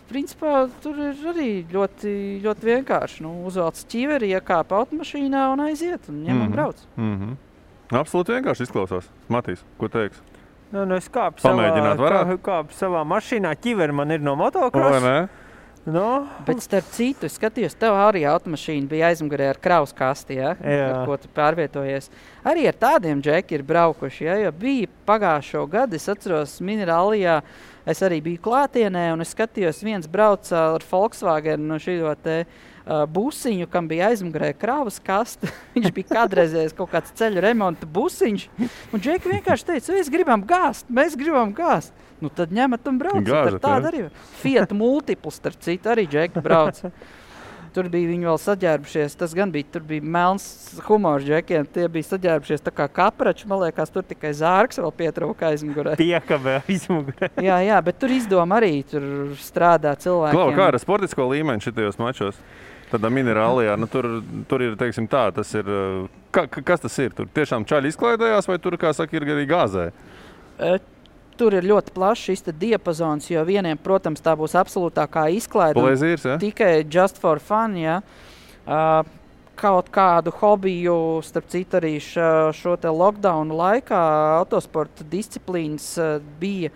principā tur ir arī ļoti, ļoti vienkārši. Uzvelc ķiveri, iekāpa automašīnā un aiziet un ņem un brauc. Absolūti vienkārši izklausās. Matīs, ko teiks? Es kāpu savā mašīnā, ķiveri man ir no motocross. Bet starp citu, es skatījos, tev arī automašīna bija aizmugurē ar kravas kasti, ja? Ar ko tu pārvietojies. Arī ar tādiem džeki ir braukuši, ja? Jo bija pagājušo gadu, es atceros mini-rallijā, es arī biju klātienē un es skatījos, viens brauca ar Volkswagen šito te busiņu, kam bija aizmugurē kravas kasta. Viņš bija kādreizējis kaut kāds ceļu remonta busiņš. Un džeki vienkārši teica, mēs gribam gāzt. Tad ņemat un braucat. Tāda arī. Fiat Multiples, starp citu, arī džeki brauc. Tur bija viņi vēl saģērbušies, tas gan bija, tur bija melns humors džekiem, tie bija saģērbušies tā kā kaprači, man liekas, tur tikai zārks vēl pietrūka aizmugurē. Piekabē aizmugurē. Jā, bet tur izdoma arī tur strādā cilvēkiem. Klau, kā ar sportisko līmeni šitajos mačos? Tādā minerālijā, nu tur ir, teiksim tā, tas ir, kas tas ir? Tur tiešām čaļi izklaidējās vai tur, kā saka, ir arī gāzē? Tur ir ļoti plašs šis diapazons, jo vieniem, protams, tā būs absolūtākā izklaide. Plezīrs, ja? Tikai just for fun, ja. Kaut kādu hobiju, starp citu arī šo te lockdownu laikā autosporta disciplīnas bija,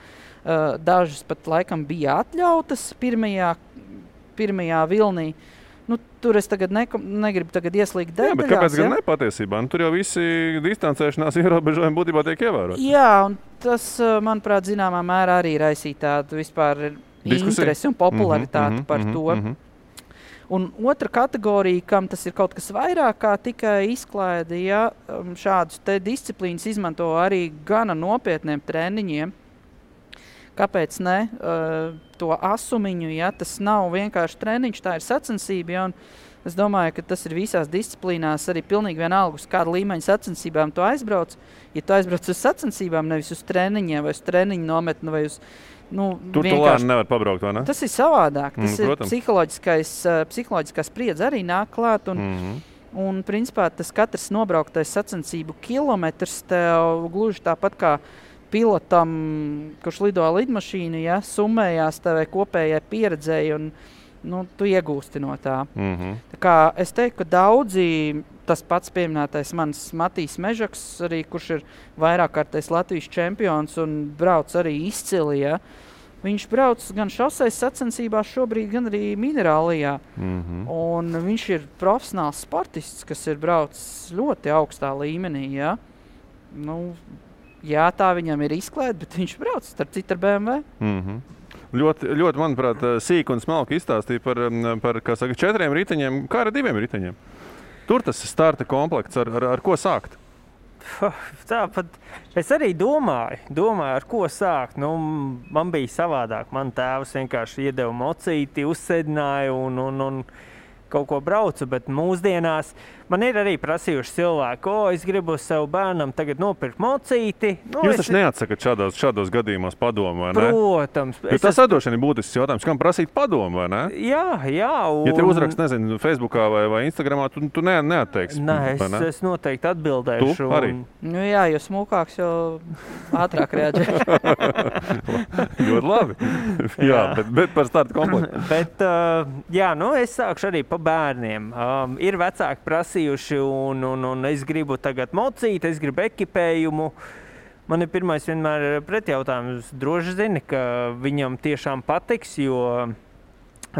dažas pat laikam bija atļautas pirmajā vilnī. Nu, tur es tagad negribu tagad ieslīgt detaļās. Jā, bet kāpēc gan nepatiesībā? Nu, tur jau visi distancēšanās ierobežojumi būtībā tiek ievēroti. Jā, un tas, manuprāt, zināmā mērā arī raisīja tādu vispār interesi un popularitāti par to. Un otra kategorija, kam tas ir kaut kas vairāk kā tikai izklaide, ja šādus te disciplīnas izmanto arī gana nopietniem treniņiem. Kāpēc ne? To asumiņu, ja tas nav vienkārši treniņš, tā ir sacensība, ja, un es domāju, ka tas ir visās disciplīnās arī pilnīgi vienalga, uz kādu līmeņu sacensībām tu aizbrauc. Ja tu aizbrauc uz sacensībām, nevis uz treniņiem, vai uz treniņu nometni, vai uz... Tur tu lēni nevar pabraukt, vai ne? Tas ir savādāk. Tas ir protams. psiholoģiskā spriedze arī nāk klāt, un principā tas katrs nobrauktais sacensību kilometrs tev gluži tāpat kā pilotam, kurš lido lidmašīnu, ja, summējās tevai kopējai pieredzēji un tu iegūsti no tā. Tā kā es teiktu, ka daudzi, tas pats pieminētais mans Matīs Mežaks, arī, kurš ir vairākkārtais Latvijas čempions un brauc arī izcili, ja, viņš brauc gan šoseis sacensībās šobrīd, gan arī minerālijā. Un viņš ir profesionāls sportists, kas ir braucis ļoti augstā līmenī, ja. Jā, tā viņam ir izklaide, bet viņš brauc starp citu ar BMW. Ļoti, manuprāt, sīk un smalki izstāstīja par kā saka, 4 riteņiem, kā ar 2 riteņiem. Tur tas starta komplekts, ar ko sākt? Tāpat es arī domāju, ar ko sākt. Man bija savādāk. Man tēvs vienkārši iedeva mocīti, uzsēdināja un kaut ko braucu, bet mūsdienās man ir arī prasījuši cilvēku, es gribu savu bērnam tagad nopirkt mocīti. Jūs taču neatsakat šādos gadījumos padomu, vai ne? Protams. Tas atdošana ir būtisks jautājums, kam prasīt padomu, vai ne? Jā. Ja te uzrakst, nezinu, Facebookā vai Instagramā, tu neatteiksi. Nē, es noteikti atbildēšu. Tu arī? Jā, jo smukāks, jo ātrāk reaģē. Ļoti labi. Jā, bet par startu komplektu. Bet, es sākšu arī pa bērniem. Ir vecāki prasījuši un es gribu tagad mocīt, es gribu ekipējumu. Man ir pirmais vienmēr pretjautājums. Droši zini, ka viņam tiešām patiks, jo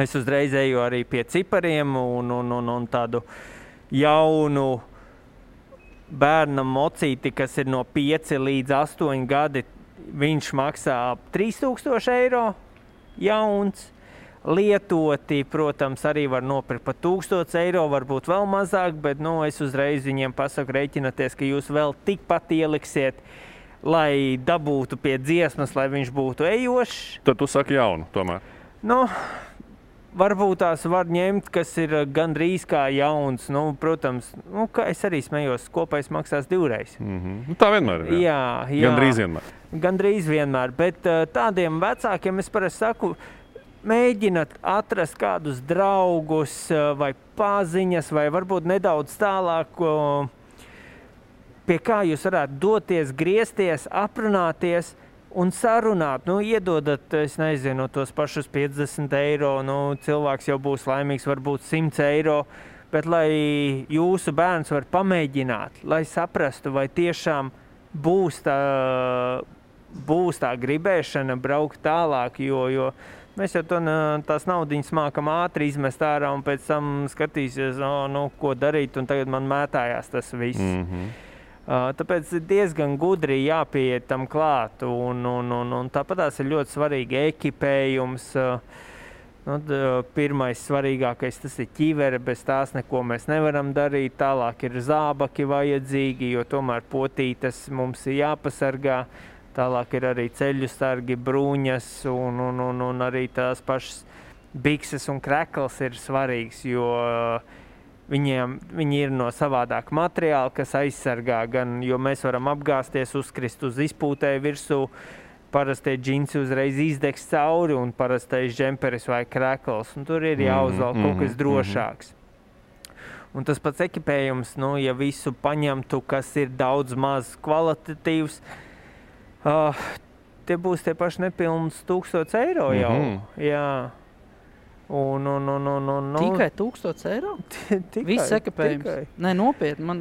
es uzreiz eju arī pie cipariem un tādu jaunu bērnam mocīti, kas ir no 5 līdz 8 gadi. Viņš maksā ap 3000 eiro jauns. Lietoti, protams, arī var nopirkt par 1000 eiro, varbūt vēl mazāk, bet es uzreiz viņiem pasaku rēķināties, ka jūs vēl tikpat ieliksiet, lai dabūtu pie dziesmas, lai viņš būtu ejošs. Tad tu saki jaunu tomēr. Varbūt tās var ņemt, kas ir gandrīz kā jauns. Protams, kā es arī smējos, kopējs maksās 2 Tā vienmēr ir. Jā. Gandrīz vienmēr, bet tādiem vecākiem es parasti saku, mēģināt atrast kādus draugus vai paziņas, vai varbūt nedaudz tālāk, pie kā jūs varētu doties, griezties, aprunāties un sarunāt. Iedodat, es nezinu, tos pašus 50 eiro, cilvēks jau būs laimīgs, varbūt 100 eiro, bet lai jūsu bērns var pamēģināt, lai saprastu, vai tiešām būs tā gribēšana braukt tālāk, jo mēs jau tās naudiņas mākam ātri izmest ārā un pēc tam skatīsies, ko darīt, un tagad man mētājās tas viss. Tāpēc diezgan gudri jāpieiet tam klāt, un tāpatās ir ļoti svarīgi ekipējums. Pirmais svarīgākais tas ir ķivere, bez tās neko mēs nevaram darīt. Tālāk ir zābaki vajadzīgi, jo tomēr potītes mums ir jāpasargā. Tālāk ir arī ceļu sargi, bruņas un arī tās pašas bikses un krekls ir svarīgs, jo viņi ir no savādāka materiāla, kas aizsargā gan, jo mēs varam apgāsties, uzkrist uz izpūtēju virsū, parastie džinsi uzreiz izdegs cauri un parastais džemperis vai krekls, un tur ir jāuzvalk kaut kas drošāks. Un tas pats ekipējums, nu, ja visu paņemtu, kas ir daudz maz kvalitatīvs, tie būs tie paši nepilns 1000 eiro jau. Jā. Un, tikai 1000 eiro? Viss ekipējums? Nē, nopietni.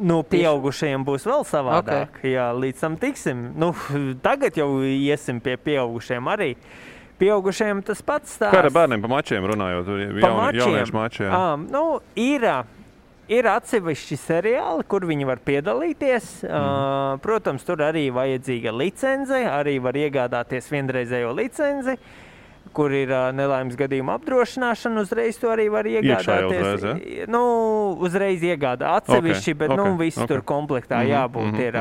Nu, pieaugušajiem būs vēl savādāk. Okay. Jā, līdz tam tiksim. Nu, tagad jau iesim pie pieaugušajiem arī. Pieaugušajiem tas pats stāsts. Kā ar bērniem pa mačiem runājot? Jauniešu mači, jā. Nu, ir atsevišķi seriāli, kur viņi var piedalīties. Protams, tur arī vajadzīga licence, arī var iegādāties vienreizējo licenci, kur ir nelaimes gadījuma apdrošināšana, uzreiz to arī var iegādāties. Iekšā uzreiz, ja? Nu, uzreiz iegādā atsevišķi, bet nu, viss tur komplektā jābūt ir.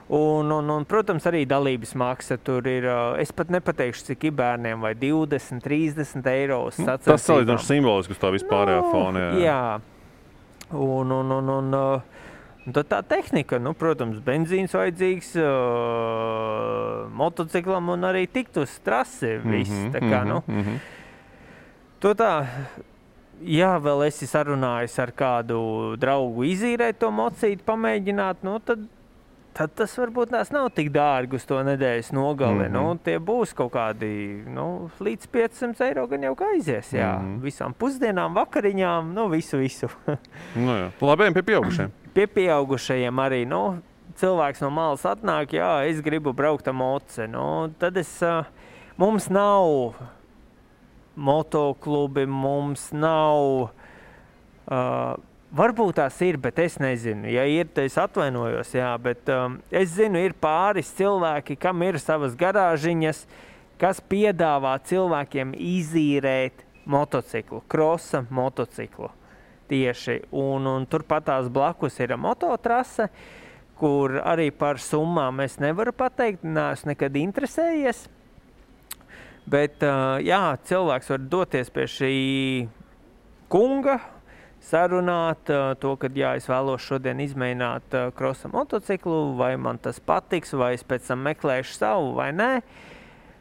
Un, protams, arī dalības maksa tur ir, es pat nepateikšu, cik ir bērniem, vai 20, 30 eiro uz sacensībām. Tas salīdzinoši simbolisks uz tā vispārējā fona. Jā. Un tad tā tehnika, nu, protams, benzīns vajadzīgs motociklam un arī tikt uz trasi viss. Tā kā, To tā, ja vēl esi sarunājis ar kādu draugu izīrēt to mocīti, pamēģināt, nu, tad tas varbūt nav tik dārgi uz to nedēļas nogali. Nu, tie būs kaut kādi, līdz 500 eiro gan jau aizies, jā. Visām pusdienām, vakariņām, visu. Nu jā. Labējiem pie pieaugušajiem. Pie pieaugušajiem arī, cilvēks no malas atnāk, jā, es gribu braukt ar moci. Tad mums nav motoklubi, mums nav... Varbūt tās ir, bet es nezinu. Ja ir, tad es atvainojos, jā, bet es zinu, ir pāris cilvēki, kam ir savas garāžiņas, kas piedāvā cilvēkiem izīrēt motociklu, krosa motociklu tieši. Un turpatās blakus ir mototrase, kur arī par summām es nevaru pateikt, neesmu nekad interesējies. Bet, jā, cilvēks var doties pie šī kunga, sarunāt to, ka jā, es vēlos šodien izmēģināt krosa motociklu, vai man tas patiks, vai es pēc tam meklēšu savu, vai nē.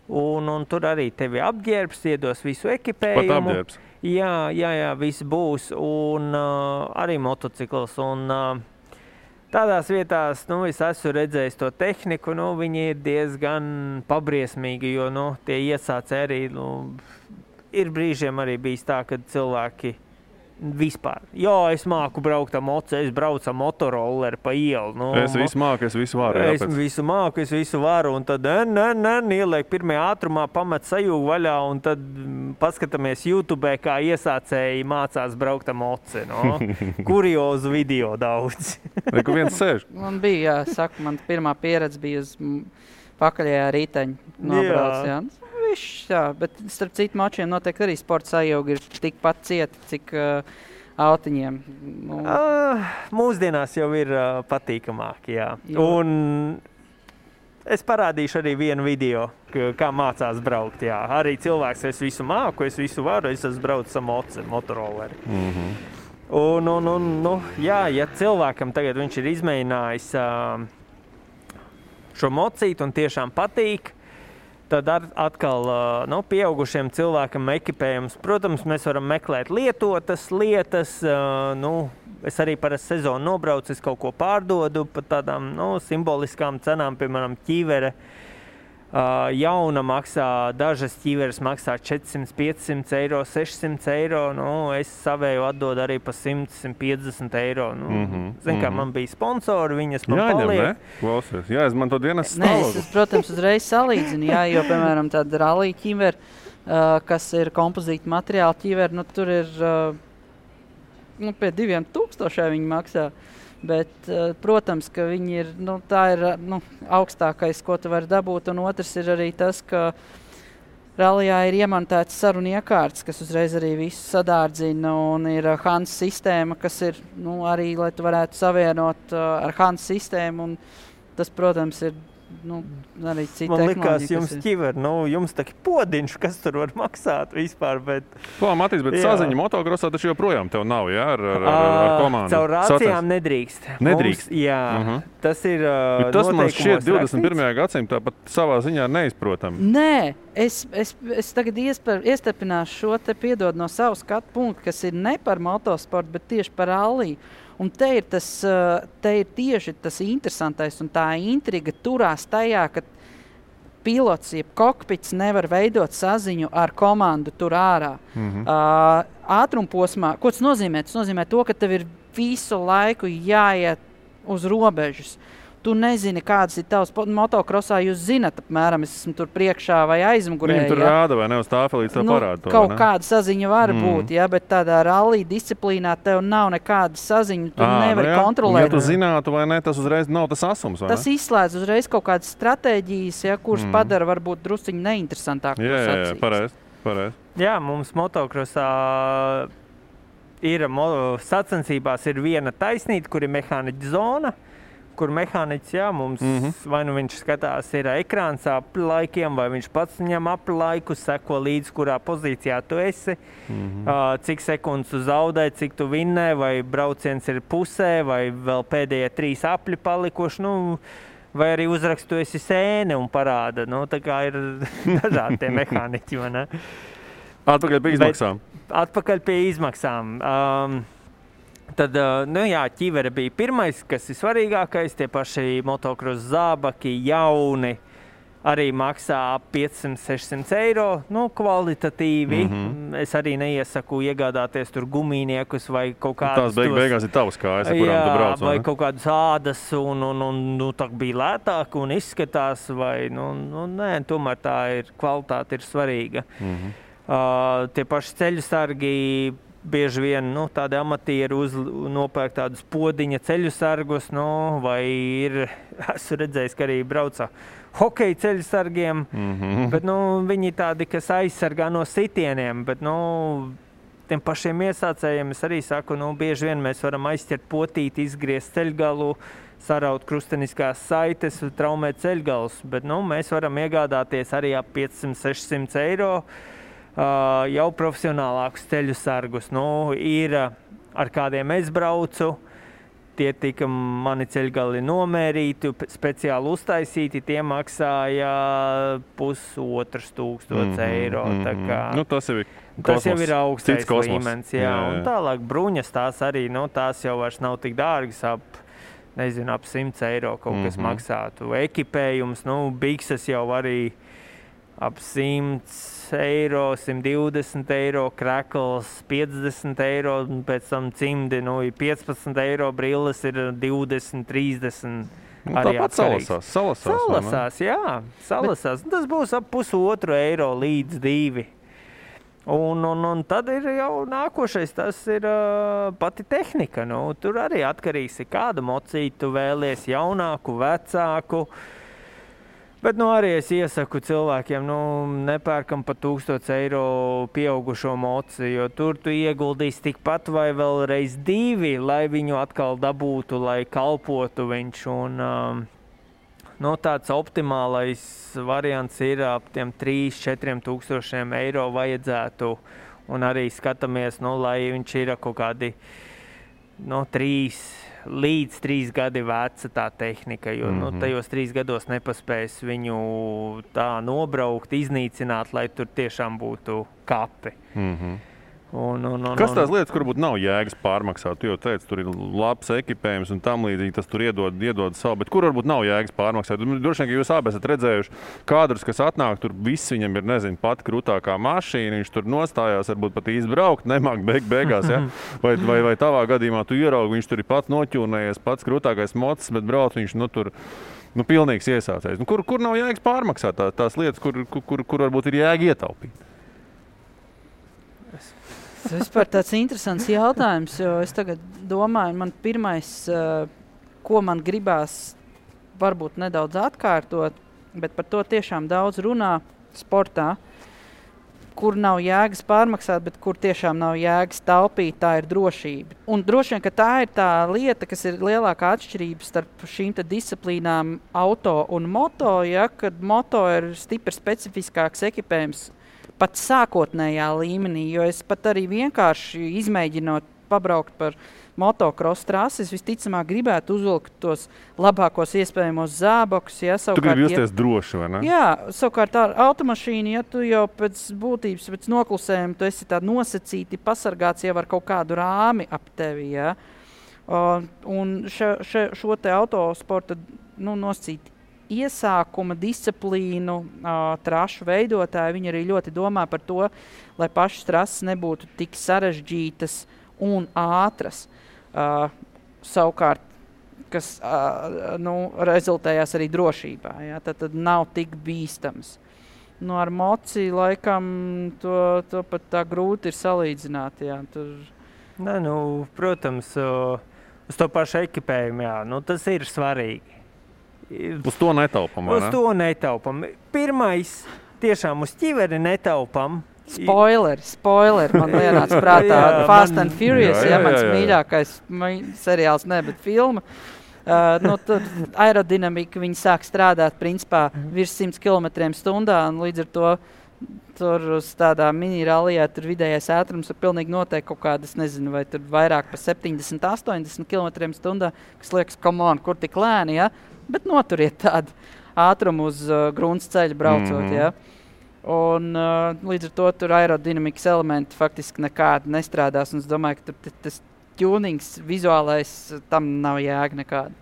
Un tur arī tevi apģērbs, iedos visu ekipējumu. Pat apģērbs? Jā, viss būs. Un arī motocikls. Un tādās vietās, es esmu redzējis to tehniku, viņi ir diezgan pabriesmīgi, jo, tie iesācēji arī, ir brīžiem arī bijis tā, kad cilvēki vispār. Jā, es māku braukt ar moci, es braucu ar motorolleri pa ielu. Es visu māku, es visu varu. Es visu māku, es visu varu, un tad ieliek pirmajā ātrumā, pamet sajūgu vaļā, un tad paskatāmies YouTube, kā iesācēji mācās braukt ar moci. Kuriozu video daudz. Kur viens sēž? Man bija, man pirmā pieredze bija uz pakaļējā rīteņa nobrauc, jā. Jā, bet starp citu mačiem noteikti arī sporta sajūga ir tikpat cieta, cik autiņiem. Mūsdienās jau ir patīkamāk, jā. Un es parādīšu arī vienu video, kā mācās braukt, jā. Arī cilvēks, es visu māku, es visu varu, es esmu braucis ar motorolleri. Un, jā, ja cilvēkam tagad viņš ir izmēģinājis šo mocīti un tiešām patīk, tad atkal pieaugušiem cilvēkam ekipējums. Protams, mēs varam meklēt lietotas lietas. Es arī parasti sezonu nobraucu, es kaut ko pārdodu par tādām simboliskām cenām, piemēram, ķīvere. Jauna maksā, dažas ķīveres maksā 400, 500 eiro, 600 eiro. Es savēju atdodu arī pa 100, 150 eiro. Kā man bija sponsori, viņas man paliek. Klausies, jāizmanto dienas stāvokli. Es, protams, uzreiz salīdzinu, jo, piemēram, tāda rallija ķīvere, kas ir kompozīta materiāla ķīvere, tur ir pie 2000 viņi maksā. Bet, protams, ka viņi ir, tā ir augstākais, ko tu vari dabūt, un otrs ir arī tas, ka rallijā ir iemontēts sarunu iekārts, kas uzreiz arī visu sadārdzina, un ir HANS sistēma, kas ir, arī, lai tu varētu savienot ar HANS sistēmu, un tas, protams, ir arī cita Man likās, tehnoloģija, jums ķiver, jums tā podiņš, kas tur var maksāt vispār, bet... Ko, Matīs, bet saziņa motokrosā taču joprojām tev nav, jā, ar komandu? Caur rācijām nedrīkst. Nedrīkst? Tas ir tas man šķiet noteikumos 21. gadsimtā pat savā ziņā neizprotam. Nē, es tagad iestepināšu šo te piedod no savu skatu punktu, kas ir ne par motosportu, bet tieši par ralliju. Un te ir tieši tas interesantais un tā intriga turās tajā, ka pilots, jeb kokpits nevar veidot saziņu ar komandu tur ārā. Ātrumposmā, ko tas nozīmē? Tas nozīmē to, ka tev ir visu laiku jāiet uz robežas. Tu nezini, kādas ir tavas motokrosā, jūs zinat apmēram, es esmu tur priekšā vai aizmugurē. Viņam tur rāda vai ne uz tāfelītes tā parāda to, kaut kāda saziņa var būt, bet tādā rallija disciplīnā tev nav nekāda saziņa, tu nevari kontrolēt. Ja tu zinātu vai ne, tas uzreiz nav tas asums, vai ne? Tas izslēdz uzreiz kaut kādas stratēģijas, kuras padara varbūt drusciņi neinteresantāk. Jā, pareizi. Jā, mums motokrosā ir sacensībās ir viena taisnīta, kur ir mehāniķa zona, kur mehāniķis, mums vai nu viņš skatās ir ekrāns apli laikiem, vai viņš pats viņam apli laiku, seko līdz, kurā pozīcijā tu esi, cik sekundes tu zaudē, cik tu vinnē, vai brauciens ir pusē, vai vēl pēdējie 3 apļi palikuši, vai arī uzrakstu esi sēne un parāda. Tā kā ir dažādi tie mehāniķi, vai ne? Atpakaļ pie izmaksām. Atpakaļ pie izmaksām. Tad, ķivere bija pirmais, kas ir svarīgākais, tie paši motokros zābaki, jauni, arī maksā ap 500-600 eiro, kvalitatīvi. Es arī neiesaku iegādāties tur gumīniekus vai kaut kādus... Tās beigās ir tavas kājas, ar kurām tu brauc, vai kaut kādus ādas un tā bija lētāk un izskatās, vai, nē, tomēr tā ir, kvalitāte ir svarīga. Tie paši ceļu sargi, bieži vien tādi amatieri nopērk tādus podiņa ceļu sargus, vai esmu redzējis, ka arī brauca hokeja ceļu sargiem, bet viņi tādi, kas aizsargā no sitieniem, bet tiem pašiem iesācējiem es arī saku, bieži vien mēs varam aizķert potīti, izgriezt ceļgalu, saraut krusteniskās saites, traumēt ceļgalus, bet mēs varam iegādāties arī ap 500-600 eiro, jau profesionālākus ceļu sargus. Ir ar kādiem es braucu, tie tika mani ceļgali nomērīti, speciāli uztaisīti, tie maksāja 1500 eiro. Tas jau ir augstais līmenis. Un tālāk bruņas tās arī, tās jau vairs nav tik dārgas, ap 100 eiro kaut kas maksātu. Ekipējums, bikses jau arī ap 100 eiro, 120 eiro, krekls 50 eiro, un pēc tam cimdi, 15 eiro, brilles ir 20, 30. Tāpat salasās. Salasās. Tas būs ap 1,5 eiro līdz 2. Un tad ir jau nākošais, tas ir pati tehnika. Tur arī atkarīgs, kādu mocītu tu vēlies, jaunāku, vecāku. Bet arī es iesaku cilvēkiem, nepērkam pa 1000 eiro pieaugušo moci, jo tur tu ieguldīsi tikpat vai vēl reiz 2, lai viņu atkal dabūtu, lai kalpotu viņš. Tāds optimālais variants ir ap tiem 3-4 tūkstošiem eiro vajadzētu. Un arī skatāmies, lai viņš ir kaut kādi 3 līdz 3 gadi veca tā tehnika, jo tajos 3 gados nepaspēs viņu tā nobraukt, iznīcināt, lai tur tiešām būtu kapi. Kas tās lietas, kur būtu nav jēgas pārmaksāt? Tu jau teici, tur ir labs ekipējums un tam līdzīgi, tas tur iedod savu, bet kur varbūt nav jēgas pārmaksāt? Droši vien, ka jūs abi esat redzējuši kādrus, kas atnāk, tur viss viņam ir, pat krūtākā mašīna, viņš tur nostājās, varbūt pat izbraukt, nemāk beigās, ja? Vai tavā gadījumā tu ieraugi, viņš tur ir pats noķūnējies, pats krūtākais mocis, bet brauc viņš, tur pilnīgs iesācējs. Kur nav jēgas pārmaksāt tās lietas, kur varbūt ir jēga ietaupīt? Tas vispār tāds interesants jautājums, jo es tagad domāju, man pirmais, ko man gribās varbūt nedaudz atkārtot, bet par to tiešām daudz runā sportā, kur nav jēgas pārmaksāt, bet kur tiešām nav jēgas taupīt, tā ir drošība. Un droši vien, ka tā ir tā lieta, kas ir lielākā atšķirība starp šīm disciplīnām auto un moto, ja, kad moto ir stipri specifiskāks ekipējums pat sākotnējā līmenī, jo es pat arī vienkārši izmēģinot pabraukt par motocross trases, visticamāk gribētu uzvilkt tos labākos iespējamos zābakus. Ja, tu gribi justies droši, vai ne? Jā, savukārt ar automašīnu, ja tu jau pēc būtības, pēc noklusējuma, tu esi tā nosacīti pasargāts jau ar kaut kādu rāmi ap tevi. Ja. Un šo te autosporta nosacīti iesākuma disciplīnu trašu veidotāji, viņi arī ļoti domā par to, lai pašas trases nebūtu tik sarežģītas un ātras. Savukārt, kas rezultējās arī drošībā. Ja? Tad nav tik bīstams. Ar moci laikam to pat tā grūti ir salīdzināt. Ja? Nē, protams, uz to pašu ekipējumu, jā, tas ir svarīgi. Uz to netaupam, vai ne? Uz to netaupam. Pirmais, tiešām uz ķiveri netaupam. Spoiler, man lienāca prātā Fast and Furious, mans mīļākais seriāls, bet filma. Tur aerodinamika, viņi sāk strādāt principā virs 100 km/h, un līdz ar to tur uz tādā mini-rallijā tur vidējais ātrums ir pilnīgi noteikti kaut kādas, nezinu, vai tur vairāk pa 70-80 km/h, kas liekas, come on, kur tik lēni, ja? Bet noturiet tādu ātrumu uz grunts ceļa braucot, ja? Un līdz ar to tur aerodinamikas elementi faktiski nekādi nestrādās, un es domāju, ka tur tas tunings vizuālais tam nav jēga nekāda.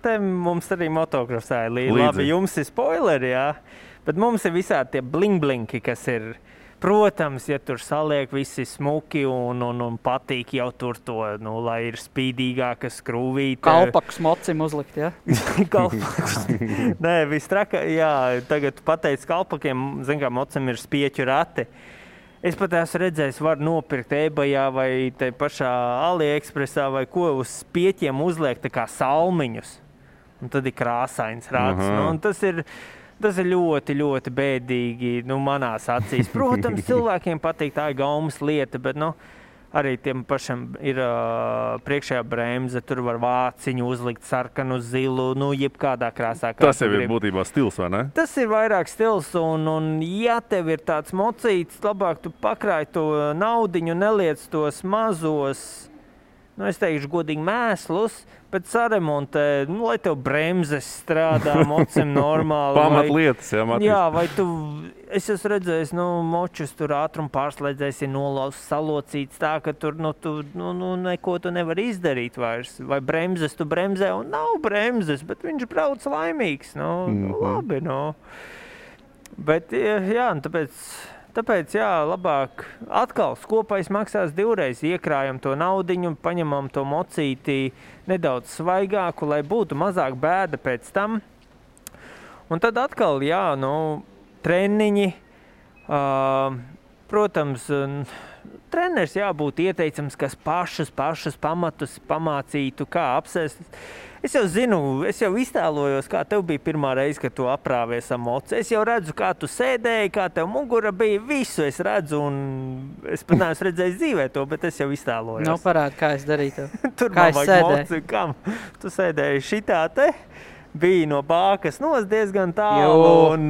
Te mums arī motocrossā ir labi, jums ir spoileri, jā, bet mums ir visādi tie bling-blinki, kas ir, protams, ja tur saliek visi smuki un patīk jau tur to, lai ir spīdīgāka skrūvīte. Kalpakus mocim uzlikt, ja? Kalpakus. Nē, viss traka, jā, tagad pateic kalpakiem, zin kā mocim ir spieķu rati. Es pat esmu redzējis, var nopirkt eBayā vai te pašā AliExpressā vai ko uz spieķiem uzliekt tā kā salmiņus. Un tad ir krāsains rats. Un tas ir ļoti, ļoti bēdīgi manās acīs. Protams, cilvēkiem patīk, tā ir gaumas lieta, bet arī tiem pašam ir priekšējā bremze, tur var vāciņu uzlikt sarkanu, zilu, jebkādā krāsā. Tas jau ir būtībā stils, vai ne? Tas ir vairāk stils, un ja tev ir tāds mocīts, labāk tu pakrāj to naudiņu, neliec tos mazos, es teikšu godīgi mēslus, bet saremontē, lai tev bremzes strādā, mocim normāli. Pamatlietas, jā, Matīs. Jā, vai es esmu redzējis, močus tur ātrumu pārslēdzējis ir nolauzts, salocīts tā, ka tur, neko tu nevar izdarīt vairs. Vai bremzes tu bremzē, un nav bremzes, bet viņš brauc laimīgs, labi, Bet, jā, tāpēc, jā, labāk atkal skopais maksās divreiz, iekrājam to naudiņu, paņemam to mocīti nedaudz svaigāku, lai būtu mazāk bēda pēc tam. Un tad atkal, jā, treniņi, protams, treneris jābūt ieteicams, kas pašus pamatus pamācītu, kā apsēst. Es jau zinu, es jau iztēlojos, kā tev bija pirmā reize, kad tu aprāvies ar moci. Es jau redzu, kā tu sēdēji, kā tev mugura bija, visu es redzu, un es pat neesmu redzējis dzīvē to, bet es jau iztēlojos. Parādi, kā es darītu. Tur kā man vajag moci, kam? Tu sēdēji šitā te, bija no bākas diezgan tālu, un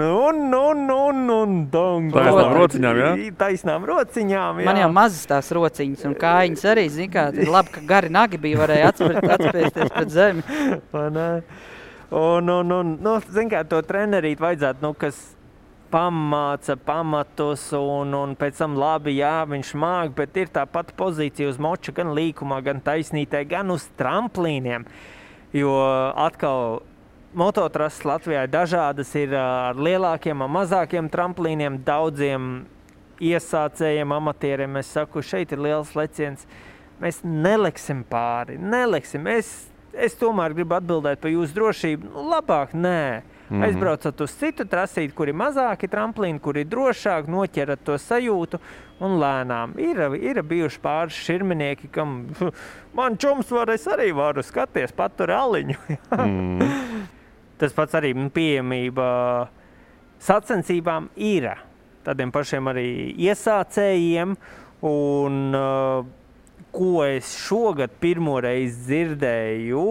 taisnām rociņām, jā? Taisnām rociņām, jā. Man jau mazas tās rociņas, un kājiņas arī, zin kā, labi, ka gari nagi bija, varēja atspēsties pret zemi. Zin kā, to trenerīt vajadzētu, kas pamāca pamatus, un pēc tam labi, jā, viņš māk, bet ir tā pati pozīcija uz moča, gan līkumā, gan taisnītē, gan uz tramplīniem, jo atkal mototrases Latvijā dažādas ir ar lielākiem un mazākiem tramplīniem, daudziem iesācējiem, amatieriem. Es saku, šeit ir liels leciens. Mēs neleksim pāri, neleksim. Es tomēr gribu atbildēt par jūsu drošību. Labāk nē. Aizbraucat uz citu trasīti, kur ir mazāki tramplīni, kur ir drošāk, noķerat to sajūtu un lēnām. Ir bijuši pāris širminieki, kam man čums es arī varu skaties, patur aliņu. Tas pats arī pieejamība sacensībām ir. tādiem pašiem arī iesācējiem. Un ko es šogad pirmoreiz dzirdēju,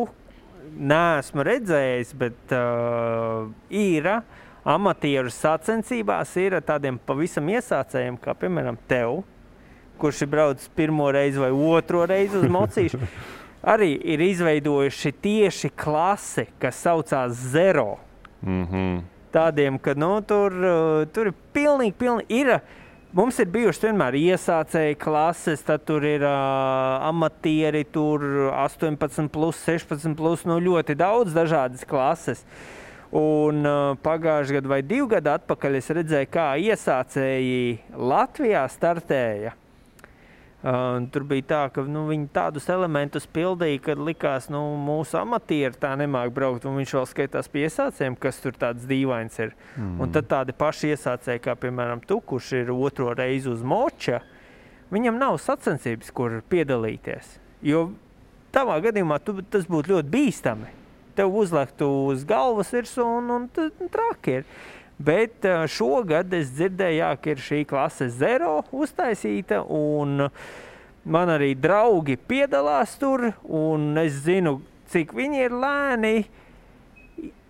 neesmu redzējis, bet ir amatieru sacensībās ir tādiem pavisam iesācējiem, kā piemēram tev, kurš ir braucis pirmo reizi vai otro reizi uz mocīšu. Arī ir izveidojuši tieši klasi, kas saucās Zero. Tādiem, ka tur ir pilnīgi ir. Mums ir bijušas vienmēr iesācēji klases, tad tur ir amatieri, tur 18+, 16+, ļoti daudz dažādas klases. Un pagājuši gadu vai 2 gadu atpakaļ es redzēju, kā iesācēji Latvijā startēja. Tur bija tā, ka viņi tādus elementus pildīja, kad likās, mūsu amatieri tā nemāk braukt, un viņš vēl skaitās pie iesācējiem, kas tur tāds dīvains ir. Un tad tādi paši iesācēji, kā piemēram tu, kurš ir otro reizi uz moča, viņam nav sacensības, kur piedalīties. Jo tavā gadījumā tas būtu ļoti bīstami. Tev uzliktu uz galvas virsū un traki ir. Bet šogad es dzirdēju, ka ir šī klase Zero uztaisīta, un man arī draugi piedalās tur, un es zinu, cik viņi ir lēni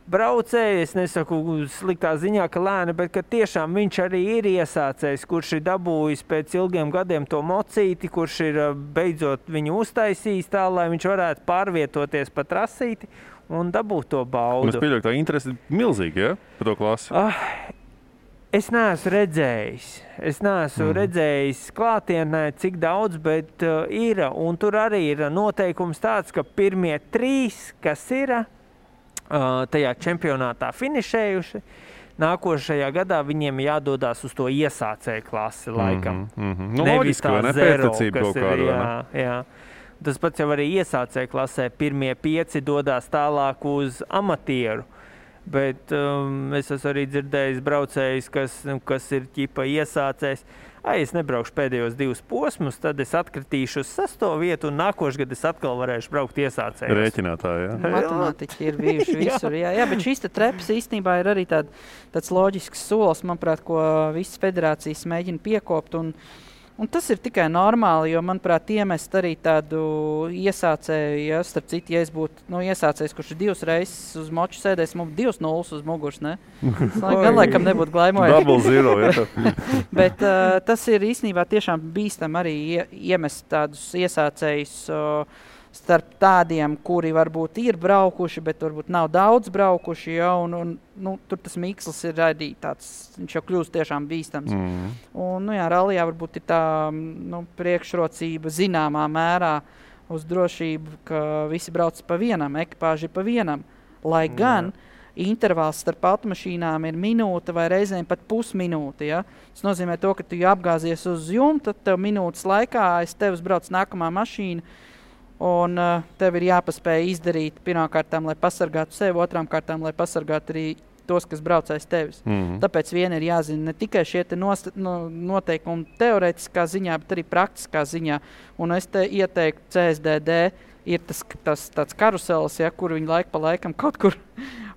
braucēji. Es nesaku sliktā ziņā, ka lēni, bet ka tiešām viņš arī ir iesācējs, kurš ir dabūjis pēc ilgiem gadiem to mocīti, kurš ir beidzot viņu uztaisījis tā, lai viņš varētu pārvietoties pa trasīti un dabūt to baudu. Es pieļauju, ka tā interese ir milzīga, ja? Par to klasi. Es neesmu redzējis. Es neesmu redzējis klātienē, cik daudz, bet ir. Un tur arī ir noteikums tāds, ka pirmie 3, kas ir tajā čempionātā finišējuši, nākošajā gadā viņiem jādodās uz to iesācēju klasi laikam. Nevis tā Zero, kas ir, jā. Tas pats jau arī iesācēju klasē. Pirmie 5 dodās tālāk uz amatieru. Bet es esmu arī dzirdējis braucējus, kas ir ķipa iesācējs. Es nebraukšu pēdējos 2 posmus, tad es atkritīšu uz 6. vietu un nākošgad es atkal varēšu braukt iesācējos. Rēķinātāji, jā? Matemātiķi ir bijuši visur, jā. Jā, bet šīs trepas īstenībā ir arī tāds loģisks solis, manuprāt, ko visas federācijas mēģina piekopt. Un tas ir tikai normāli, jo, manuprāt, iemest arī tādu iesācēju, ja, starp citu, ja es būtu iesācējs, kurš ir 2 reizes uz moču sēdēs, mums 2-0 uz muguras, ne? Gan laikam nebūtu glaimojami. Double zero, ja. Bet tas ir īstenībā tiešām bīstam arī iemest tādus iesācējus starp tādiem, kuri varbūt ir braukuši, bet varbūt nav daudz braukuši, ja, un tur tas miksls ir arī tāds, viņš jau kļūst tiešām bīstams. Un, rallijā varbūt ir tā, priekšrocība zināmā mērā uz drošību, ka visi brauc pa vienam, ekipāži pa vienam, lai gan intervāls starp automašīnām ir minūte vai reizēm pat pusminūte, ja. Tas nozīmē to, ka tu apgāzies uz jumta, tad tev minūtes laikā aiz tevis brauc nākamā mašīna, un tev ir jāpaspēj izdarīt pirmkārtām, lai pasargātu sevi, otrām kārtām, lai pasargātu arī tos, kas brauc aiz tevis. Tāpēc vien ir jāzina ne tikai šie noteikumi teorētiskā ziņā, bet arī praktiskā ziņā. Un es te ieteiktu CSDD, ir tas tāds karuselis, ja, kur viņi laiku pa laikam kaut kur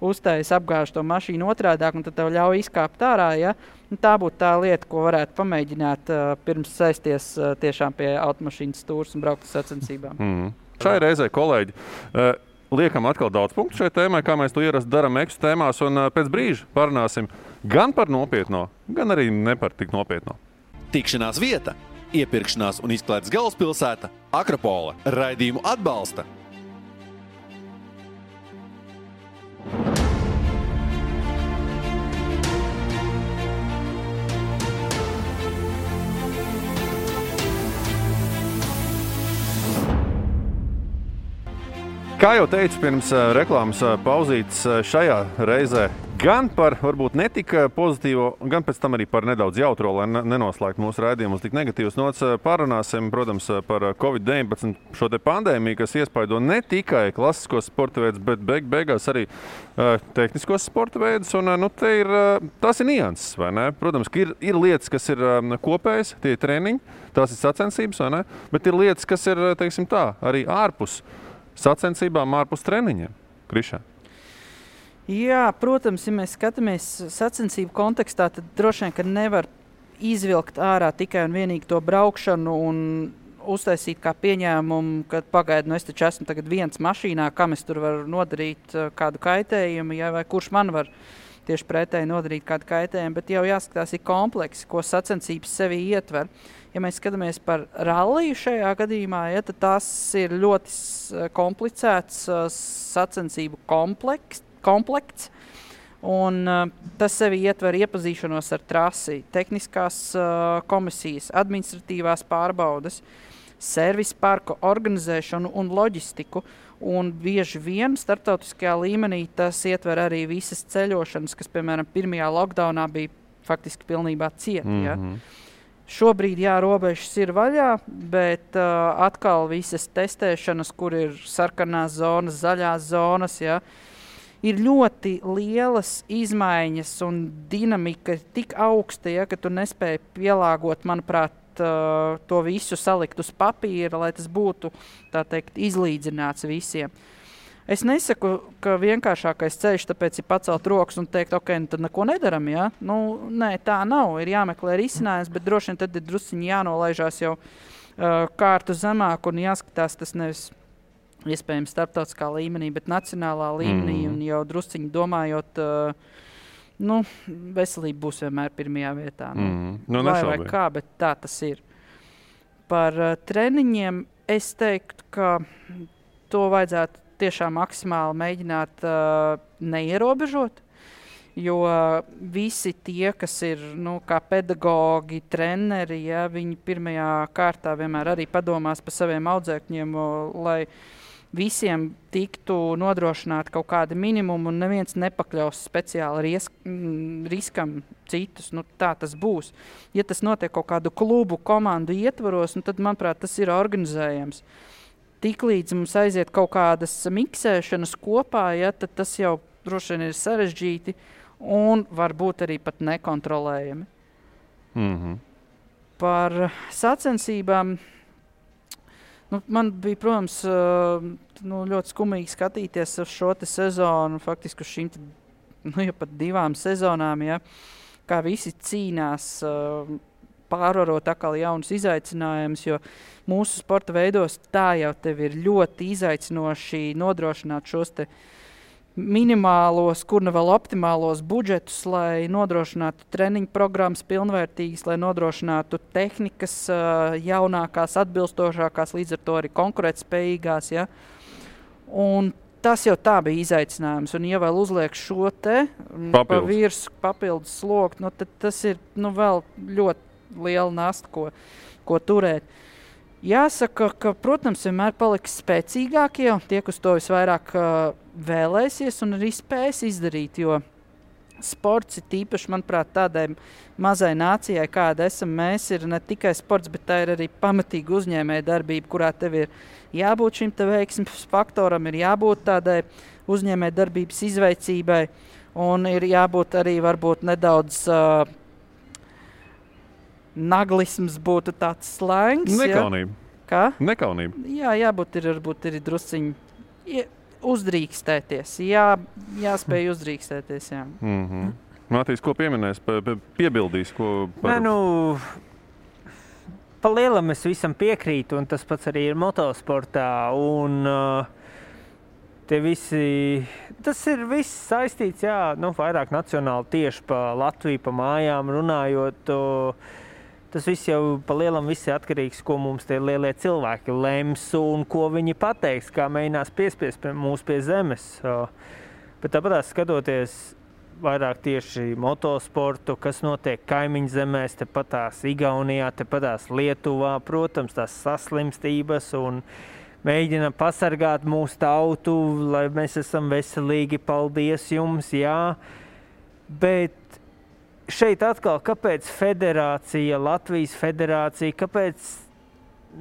uztājas, apgāž to mašīnu otrādāk, un tad tev ļauj izkāpt ārā, ja. Un tā būtu tā lieta, ko varētu pamēģināt pirms saisties tiešām pie automašīnas stūras un braukt uz sacensībām. Šai reizē, kolēģi, liekam atkal daudz punktu šai tēmai, kā mēs to ierasti daram eksu tēmās, un pēc brīža parunāsim gan par nopietno, gan arī ne par tik nopietno. Tikšanās vieta, iepirkšanās un izklaides galvaspilsēta Akropole. Raidījumu atbalsta Kā jau teicu, pirms reklāmas pauzītes šajā reizē gan par varbūt netik pozitīvo, gan pēc tam arī par nedaudz jautro, lai nenoslēgtu mūsu raidījumus tik negatīvas nots, parunāsim, protams, par Covid-19 šo te pandēmiju, kas iespaido ne tikai klasiskos sporta veidus, bet beigās arī tehniskos sporta veidus, un tas ir nianses, vai ne? Protams, ka ir lietas, kas ir kopējas, tie ir treniņi, tās ir sacensības, vai ne? Bet ir lietas, kas ir, teiksim tā, arī ārpus sacensībām, ārpus treniņiem. Krišā. Jā, protams, ja mēs skatāmies sacensību kontekstā, tad droši vien, ka nevar izvilkt ārā tikai un vienīgi to braukšanu un uztaisīt kā pieņēmumu, ka pagaidi, es taču esmu tagad viens mašīnā, kam es tur varu nodarīt kādu kaitējumu, ja, vai kurš man var tieši pretēji nodarīt kādu kaitējumu, bet jau jāskatās ir kompleksi, ko sacensības sevī ietver. Ja mēs skatāmies par ralliju šajā gadījumā, ja, tad tas ir ļoti komplicēts sacensību komplekts, un tas sevi ietver iepazīšanos ar trasi, tehniskās komisijas, administratīvās pārbaudes, servisa parku organizēšanu un loģistiku, un bieži vien starptautiskajā līmenī tas ietver arī visas ceļošanas, kas, piemēram, pirmajā lockdownā bija faktiski pilnībā cieta. Ja? Šobrīd, jā, robežas ir vaļā, bet atkal visas testēšanas, kur ir sarkanās zonas, zaļās zonas, ja, ir ļoti lielas izmaiņas un dinamika ir tik augsta, ja, ka tu nespēji pielāgot, manuprāt, to visu salikt uz papīra, lai tas būtu, tā teikt, izlīdzināts visiem. Es nesaku, ka vienkāršākais ceļš tāpēc ir pacelt rokas un teikt, ok, tad neko nedaram, ja? Nē, tā nav, ir jāmeklē risinājums, bet droši vien tad ir drusciņi jānolaižās jau kārtu zemāk un jāskatās tas nevis iespējams starptautiskā līmenī, bet nacionālā līmenī un jau drusciņi domājot, veselība būs vienmēr pirmajā vietā. Vai kā, bet tā tas ir. Par treniņiem es teiktu, ka to vajadzētu tiešām maksimāli mēģināt neierobežot, jo visi tie, kas ir kā pedagogi, treneri, ja, viņi pirmajā kārtā vienmēr arī padomās par saviem audzēkņiem, lai visiem tiktu nodrošināt kaut kādi minimumi un neviens nepakļaus speciāli riskam citus. Tā tas būs. Ja tas notiek kaut kādu klubu komandu ietvaros, tad, manuprāt, tas ir organizējams. Tiklīdz mums aiziet kaut kādas miksēšanas kopā, ja, tad tas jau droši vien ir sarežģīti un varbūt arī pat nekontrolējami. Par sacensībām man bija, protams, ļoti skumīgi skatīties uz šo te sezonu, faktiski uz šīm jau pat 2 sezonām, ja, kā visi cīnās pārvarot atkal jaunus izaicinājumus, jo mūsu sporta veidos tā jau tev ir ļoti izaicinoši nodrošināt šos te minimālos, kur ne vēl optimālos budžetus, lai nodrošinātu treniņu programmas pilnvērtīgas, lai nodrošinātu tehnikas jaunākās, atbilstošākās, līdz ar to arī konkurētspējīgās. Ja? Un tas jau tā bija izaicinājums. Un ja vēl uzliek šo te pa virsmu papildus slogu, tad tas ir vēl ļoti liela nasta, ko turēt. Jāsaka, ka, protams, vienmēr paliks spēcīgākie, tie, kas to visvairāk vēlēsies un arī spēs izdarīt, jo sports ir tīpaši, manuprāt, tādai mazai nācijai, kāda esam mēs, ir ne tikai sports, bet tā ir arī pamatīga uzņēmēja darbība, kurā tev ir jābūt šim te veiksmes faktoram, ir jābūt tādai uzņēmēja darbības izveicībai un ir jābūt arī varbūt nedaudz naglisms būtu tāds slēngs. Nekaunība. Ja? Kā? Nekaunība. Jā, jābūt ir drusciņi uzdrīkstēties. Jāspēj uzdrīkstēties, jā. Mātīs, ko pieminēs, piebildīs, ko par... Pa lielam es visam piekrītu, un tas pats arī ir motosportā, un tie visi, tas ir viss saistīts, jā, vairāk nacionāli tieši pa Latviju, pa mājām runājot, tas viss jau pa lielam viss ir atkarīgs, ko mums tie lielie cilvēki lems un ko viņi pateiks, kā mēģinās piespiest mūs pie zemes. Bet tāpatās skatoties vairāk tieši motosportu, kas notiek kaimiņu zemēs, tepatās Igaunijā, tepatās Lietuvā, protams, tās saslimstības un mēģina pasargāt mūsu tautu, lai mēs esam veselīgi, paldies jums, jā. Bet šeit atkal, kāpēc federācija, Latvijas federācija, kāpēc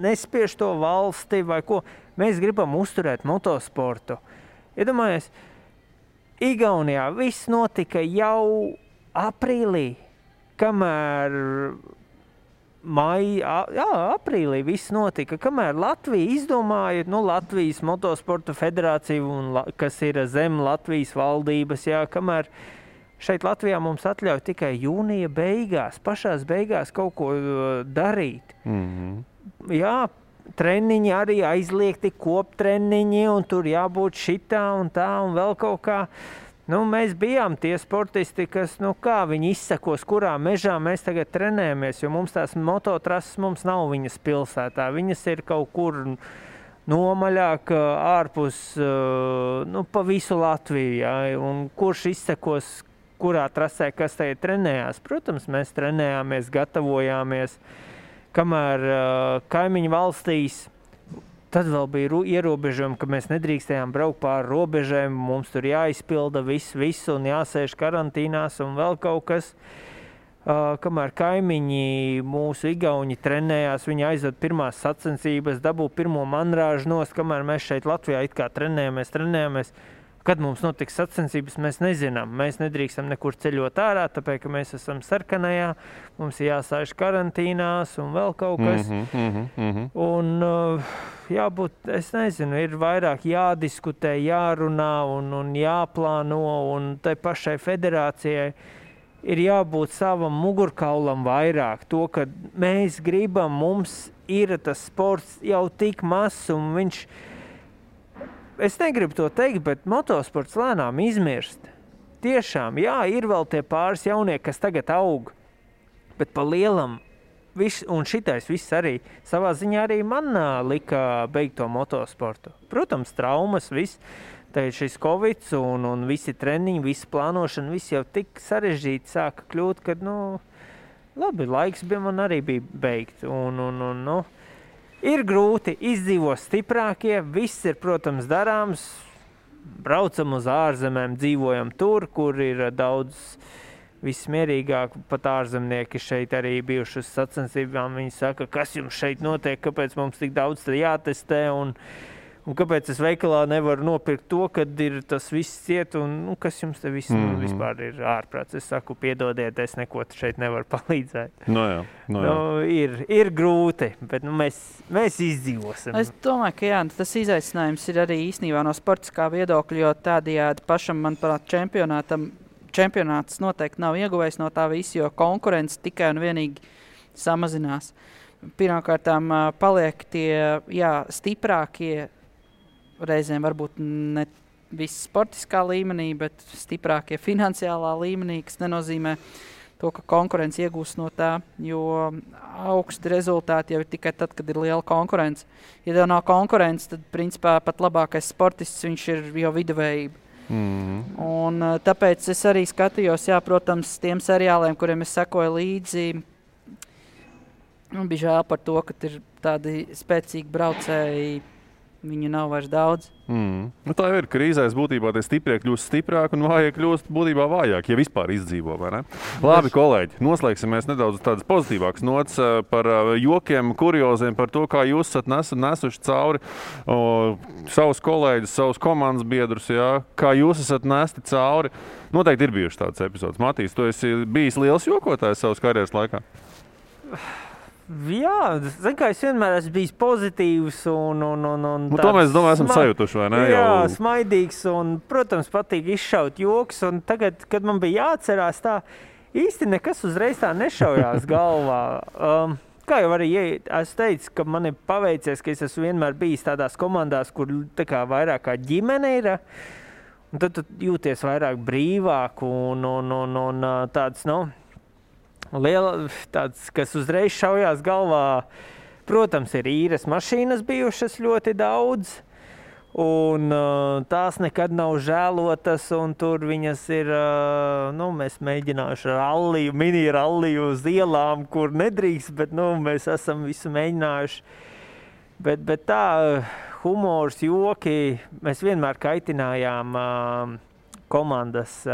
nespiež to valsti vai ko? Mēs gribam uzturēt motosportu. Iedomājies, Igaunijā viss notika jau aprīlī, kamēr aprīlī viss notika, kamēr Latvija izdomāja, Latvijas motosporta federācija, kas ir zem Latvijas valdības, jā, kamēr šeit Latvijā mums atļauj tikai jūnija beigās, pašās beigās kaut ko darīt. Jā, treniņi arī aizliegti, koptreniņi, un tur jābūt šitā un tā, un vēl kaut kā. Nu, mēs bijām tie sportisti, kas, nu kā viņi izsakos, kurā mežā mēs tagad trenējamies, jo mums tās mototrases mums nav viņas pilsētā. Viņas ir kaut kur nomaļāk ārpus, nu, pa visu Latviju, ja? Un kurš izsakos, kurā trasē, kas tajā trenējās. Protams, mēs trenējāmies, gatavojāmies, kamēr kaimiņu valstīs. Tad vēl bija ierobežojumi, ka mēs nedrīkstējām braukt pāri robežēm, mums tur jāizpilda visu un jāsēž karantīnās un vēl kaut kas. Kamēr kaimiņi mūsu igauņi trenējās, viņi aizved pirmās sacensības, dabū pirmo manrāžu nost, kamēr mēs šeit Latvijā it kā trenējāmies. Kad mums notiks sacensības, mēs nezinām. Mēs nedrīkstam nekur ceļot ārā, tāpēc, ka mēs esam sarkanajā, mums ir jāsēž karantīnās un vēl kaut kas. Un jābūt, es nezinu, ir vairāk jādiskutē, jārunā un jāplāno, un tai pašai federācijai ir jābūt savam mugurkaulam vairāk. To, ka mēs gribam, mums ir tas sports jau tik mazs, un viņš... Es negribu to teikt, bet motosports lēnām izmirst. Tiešām, jā, ir vēl tie pāris jaunieki, kas tagad aug, bet pa lielam, un šitais viss arī, savā ziņā arī man lika beigt to motosportu. Protams, traumas, viss, tad šis Covid un visi treniņi, visi plānošana, viss jau tik sarežģīti sāka kļūt, kad, nu, labi, laiks man arī bija beigt, nu, ir grūti, izdzīvo stiprākie, viss ir, protams, darāms, braucam uz ārzemēm, dzīvojam tur, kur ir daudz vismierīgāk, pat ārzemnieki šeit arī bijuši uz sacensībām, viņi saka, kas jums šeit notiek, kāpēc mums tik daudz jātestē, un kāpēc es veikalā nevaru nopirkt to, kad ir tas viss ciet, un nu, kas jums te viss vispār ir ārprāts. Es saku, piedodiet, es neko šeit nevaru palīdzēt. No jā. Ir grūti, bet nu, mēs izdzīvosim. Es domāju, ka jā, tas izaicinājums ir arī īstenībā no sportiskā viedokļa, jo tādējādi pašam, manuprāt, čempionāts noteikti nav ieguvējis no tā visa, jo konkurence tikai un vienīgi samazinās. Pirmkārtām paliek tie, stiprākie, reizēm varbūt ne viss sportiskā līmenī, bet stiprākie finansiālā līmenī, kas nenozīmē to, ka konkurence iegūst no tā, jo augsti rezultāti jau ir tikai tad, kad ir liela konkurence. Ja tev nav konkurence, tad principā pat labākais sportists, viņš ir jau viduvējība. Un tāpēc es arī skatījos, protams, tiem seriāliem, kuriem es sekoju līdzi, bija žēl par to, ka ir tādi spēcīgi braucēji, viņu nav vairs daudz. Nu, tā jau ir krīzēs būtībā, tie stiprie kļūst stiprāk un vājie kļūst būtībā vājāk, ja vispār izdzīvo, vai ne? Labi, kolēģi, noslēgsimies nedaudz tādas pozitīvākas nots par jokiem, kurioziem, par to, kā jūs esat nesuši cauri savus kolēģus, savus komandas biedrus, kā jūs esat nesti cauri. Noteikti ir bijuši tādas epizodes. Matīs, tu esi bijis liels jokotājs savas karjeras laikā? Jā, kā es vienmēr esmu bijis pozitīvs un to mēs, domāju, esam sajutuši, vai ne? Jā, smaidīgs un, protams, patīk izšaut joks. Un tagad, kad man bija jāatcerās tā, īsti nekas uzreiz tā nešaujās galvā. Kā jau arī es teicu, ka man ir paveicies, ka es esmu vienmēr bijis tādās komandās, kur tā kā vairāk kā ģimene ir. Un tad tu jūties vairāk brīvāk un tāds, liela, tāds, kas uzreiz šaujās galvā, protams, ir īres mašīnas bijušas ļoti daudz, un tās nekad nav žēlotas, un tur viņas ir, mēs mēģinājuši ralliju, mini ralliju uz ielām, kur nedrīkst, bet, mēs esam visu mēģinājuši. Bet tā, humors, joki, mēs vienmēr kaitinājām komandas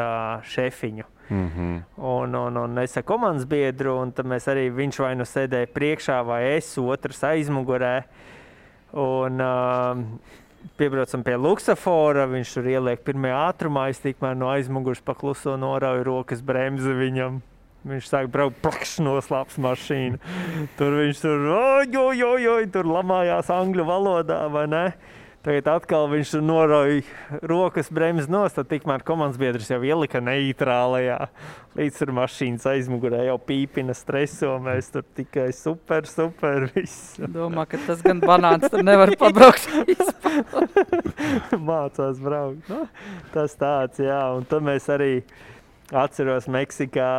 šefiņu. Un es ar komandas biedru, un tad mēs arī, viņš vai nu sēdēja priekšā vai es, otrs aizmugurē. Un piebraucam pie luksafora, viņš tur ieliek pirmajā ātrumā, es tikmēr no aizmugurs pakluso norauju rokas bremzi viņam. Viņš sāk braukt, plakš noslāps mašīnu. Tur viņš tur lamājās angļu valodā, vai ne? Tagad atkal viņš norauja rokas bremzes nost, tad tikmēr komandas biedrs jau ielika neitrālajā. Līdz ar mašīnas aizmugurē jau pīpina streso, mēs tur tikai super, viss. Domā, ka tas gan banāns tur nevar pabraukt. Mācās braukt. Nu, tas tāds, jā. Un tad mēs arī atceros Meksikā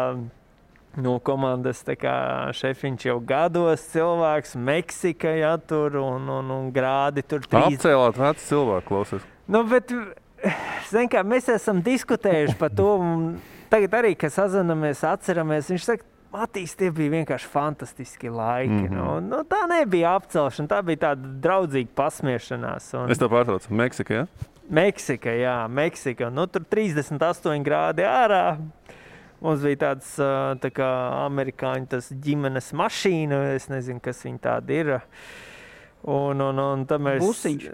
no komandas, tā kā šefiņš jau gados cilvēks, Meksika, ja, tur un grādi tur 3. Apcēlāt veci cilvēku, klausies. Nu, bet, zin kā, mēs esam diskutējuši par to, un tagad arī, kad sazinamies, atceramies, viņš saka, Matīs, tie bija vienkārši fantastiski laiki. Nu, tā nebija apcelšana, tā bija tāda draudzīga pasmiešanās. Es tev pārtraucu, Meksika, ja? Meksika, jā, Meksika. Nu, tur 38 grādi ārā. Mums bija tāds tā kā amerikāņu tas ģimenes mašīna, es nezinu, kas viņi tādi ir. Un tad mēs... Busiņš?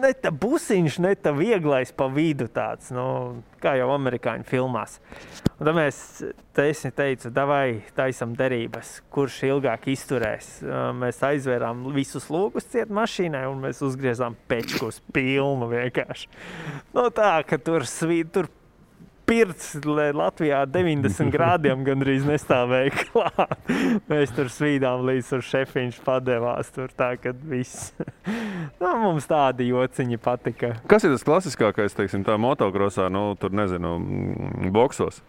Ne tā busiņš, ne tā vieglais pa vidu tāds, nu, kā jau amerikāņu filmās. Un tad mēs teicu, davai taisam derības, kurš ilgāk izturēs. Mēs aizvērām visus logus ciet mašīnai un mēs uzgriezām pečkus pilnu vienkārši. Nu tā, ka tur pirts Latvijā 90 grādiem gandrīz nestāvēja klāt. Mēs tur svīdām līdz tur šefiņš padevās tur tā, kad viss. Nu, mums tādi jociņi patika. Kas ir tas klasiskākais, teiksim, tā motokrosā, nu, tur nezinu, boksos?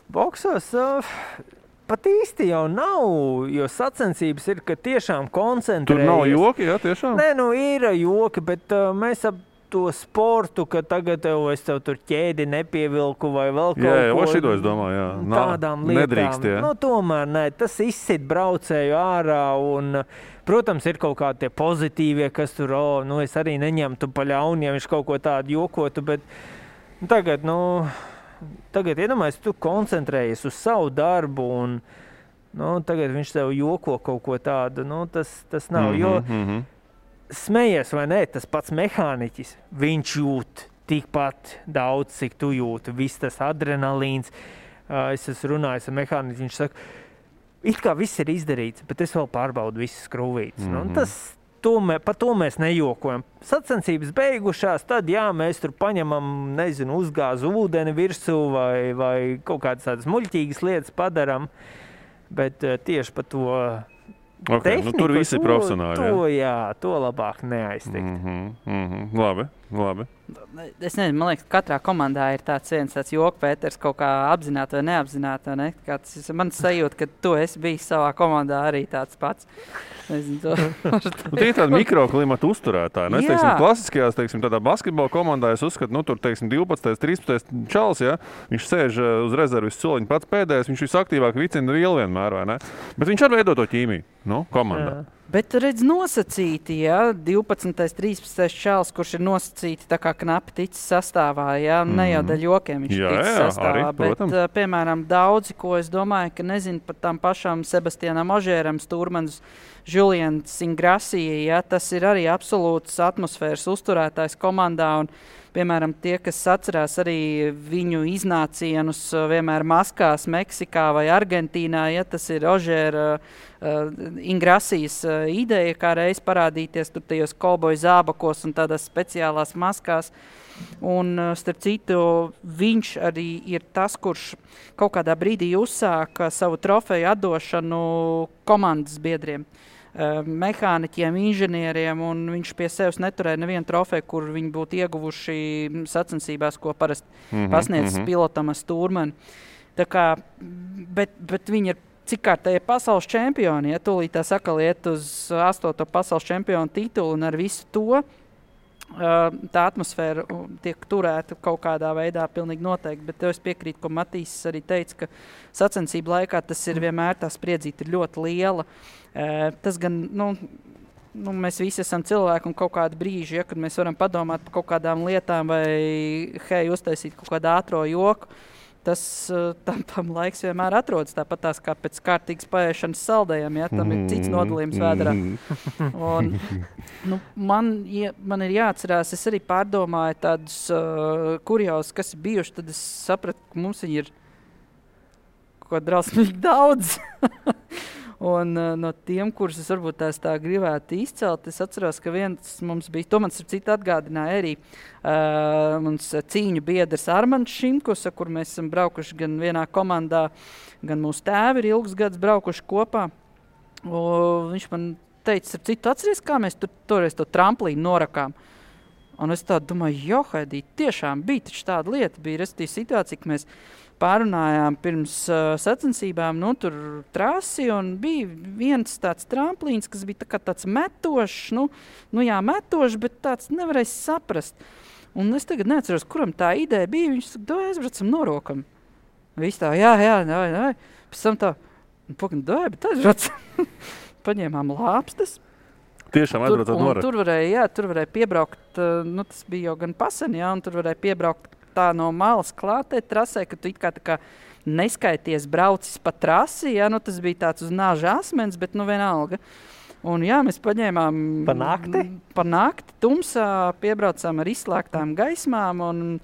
Boksos pat īsti jau nav, jo sacensības ir, ka tiešām koncentrējas. Tur nav joki, jā, tiešām? Nē, nu ir joki, bet mēs ap to sportu, ka tagad es tev tur ķēdi nepievilku vai vēl kaut ko. Jā, šito es domāju, jā. Tādām lietām. Nedrīkst, jā. Nu, tomēr nē, tas izsit braucēju ārā un, protams, ir kaut kādi tie pozitīvie, kas tur, es arī neņemtu pa ļauni, ja viņš kaut ko tādu jokotu, bet tagad iedomājies, tu koncentrējies uz savu darbu un, tagad viņš tev joko kaut ko tādu, tas nav, jo smejies vai nē, tas pats mehāniķis, viņš jūt tikpat daudz, cik tu jūti, viss tas adrenalīns. Es esmu runājis ar mehāniķi, viņš saka, it kā viss ir izdarīts, bet es vēl pārbaudu visas skrūvītes. Par to mēs nejokojam. Sacensības beigušās, tad jā, mēs tur paņemam, nezinu, uzgāzu ūdeni virsū vai kaut kādas tādas muļķīgas lietas padaram, bet tieši par to Okay, tehniku, tur visi ir profesionāli. To labāk neaiztikt. Labi. Es nezinu, man liekas, katrā komandā ir tāds joku Pēters kaut kā apzināti vai neapzināti. Ne? Man sajūta, ka tu esi bijis savā komandā arī tāds pats. Nezinu, tie ir tādi mikroklimata uzturētāji. Es teiksim, klasiskajās, tādā basketbola komandā es uzskatu, tur, teiksim, 12. 13. čals, ja? Viņš sēž uz rezervis soliņa pats pēdējais, viņš visaktīvāk vicina vielu vienmēr, vai ne? Bet viņš arī veido to ķīmiju, komandā. Jā. Bet redz nosacīti, ja, 12. 13. čals, kurš ir nosacīti tā kā knapi ticis sastāvā, ja, ne jau daļ jokiem viņš ticis sastāvā, arī, bet, piemēram, daudzi, ko es domāju, ka nezinu par tām pašām Sebastianam Ožēram, Stūrmans, Julians Ingrasija, ja, tas ir arī absolūts atmosfēras uzturētājs komandā un, piemēram, tie, kas atcerās arī viņu iznācienus vienmēr maskās Meksikā vai Argentīnā, ja tas ir Ožēra Ingrasijas ideja, kā reiz parādīties tur tajos kolboju zābakos un tādās speciālās maskās. Un, starp citu, viņš arī ir tas, kurš kaut kādā brīdī uzsāka savu trofeju atdošanu komandas biedriem. Mehāniķiem, inženieriem, un viņš pie sevis neturēja nevienu trofeju, kur viņi būtu ieguvuši sacensībās, ko parasti pasniedz pilotam ar Stūrmani. Tā kā, bet viņi ir cik kārtēji pasaules čempioni, ja tūlīt tā saka iet uz 8. pasaules čempionu titulu un ar visu to, tā atmosfēra tiek turēta kaut kādā veidā pilnīgi noteikti, bet es piekrītu, ko Matīs arī teica, ka sacensību laikā tas ir vienmēr tā spriedzīte ir ļoti liela. Tas gan, mēs visi esam cilvēki un kaut kādi brīži, ja, kad mēs varam padomāt par kaut kādām lietām vai uztaisīt kaut kādu ātro joku, tas tam laiks vienmēr atrodas tāpat tās kā pēc kārtīgas paēšanas saldējiem, ja, tam ir cits nodalījums vēderā. Un, man ir jāatcerās, es arī pārdomāju tādus kurjausus, kas ir bijuši, tad es sapratu, ka mums viņi ir kaut drausmīgi daudz. Un no tiem, kurus es varbūt tā gribētu izcelt, es atceros, ka viens mums bija, to man starp citu atgādināja arī mums cīņu biedrs Armands Šimkus, ar kur mēs esam braukuši gan vienā komandā, gan mūsu tēvi ir ilgus gadus braukuši kopā. Un viņš man teica, starp citu, atceries, kā mēs toreiz to tramplīnu norakām. Un es tādu domāju, Haidī, tiešām bija taču tāda lieta, bija restīva situācija, ka mēs pārunājām pirms sacensībām, tur trasi, un bija viens tāds tramplīns, kas bija tāds metošs, metošs, bet tāds nevarēs saprast. Un es tagad neatceros, kuram tā ideja bija, viņš saka, aizbraucam norokam. Viss tā, jā, pēc tam tā, bet aizbraucam. Paņēmām lāpstas. Tiešām aizbraucot norak. Tur varēja piebraukt, tas bija jau gan pasen, un tur varēja piebraukt tā no malas klātē trasē, ka tu it kā neskaities braucis pa trasi, tas bija tāds uz nāža asmens, bet vienalga. Un mēs paņēmām pa nakti tumsā, piebraucām ar izslēgtām gaismām, un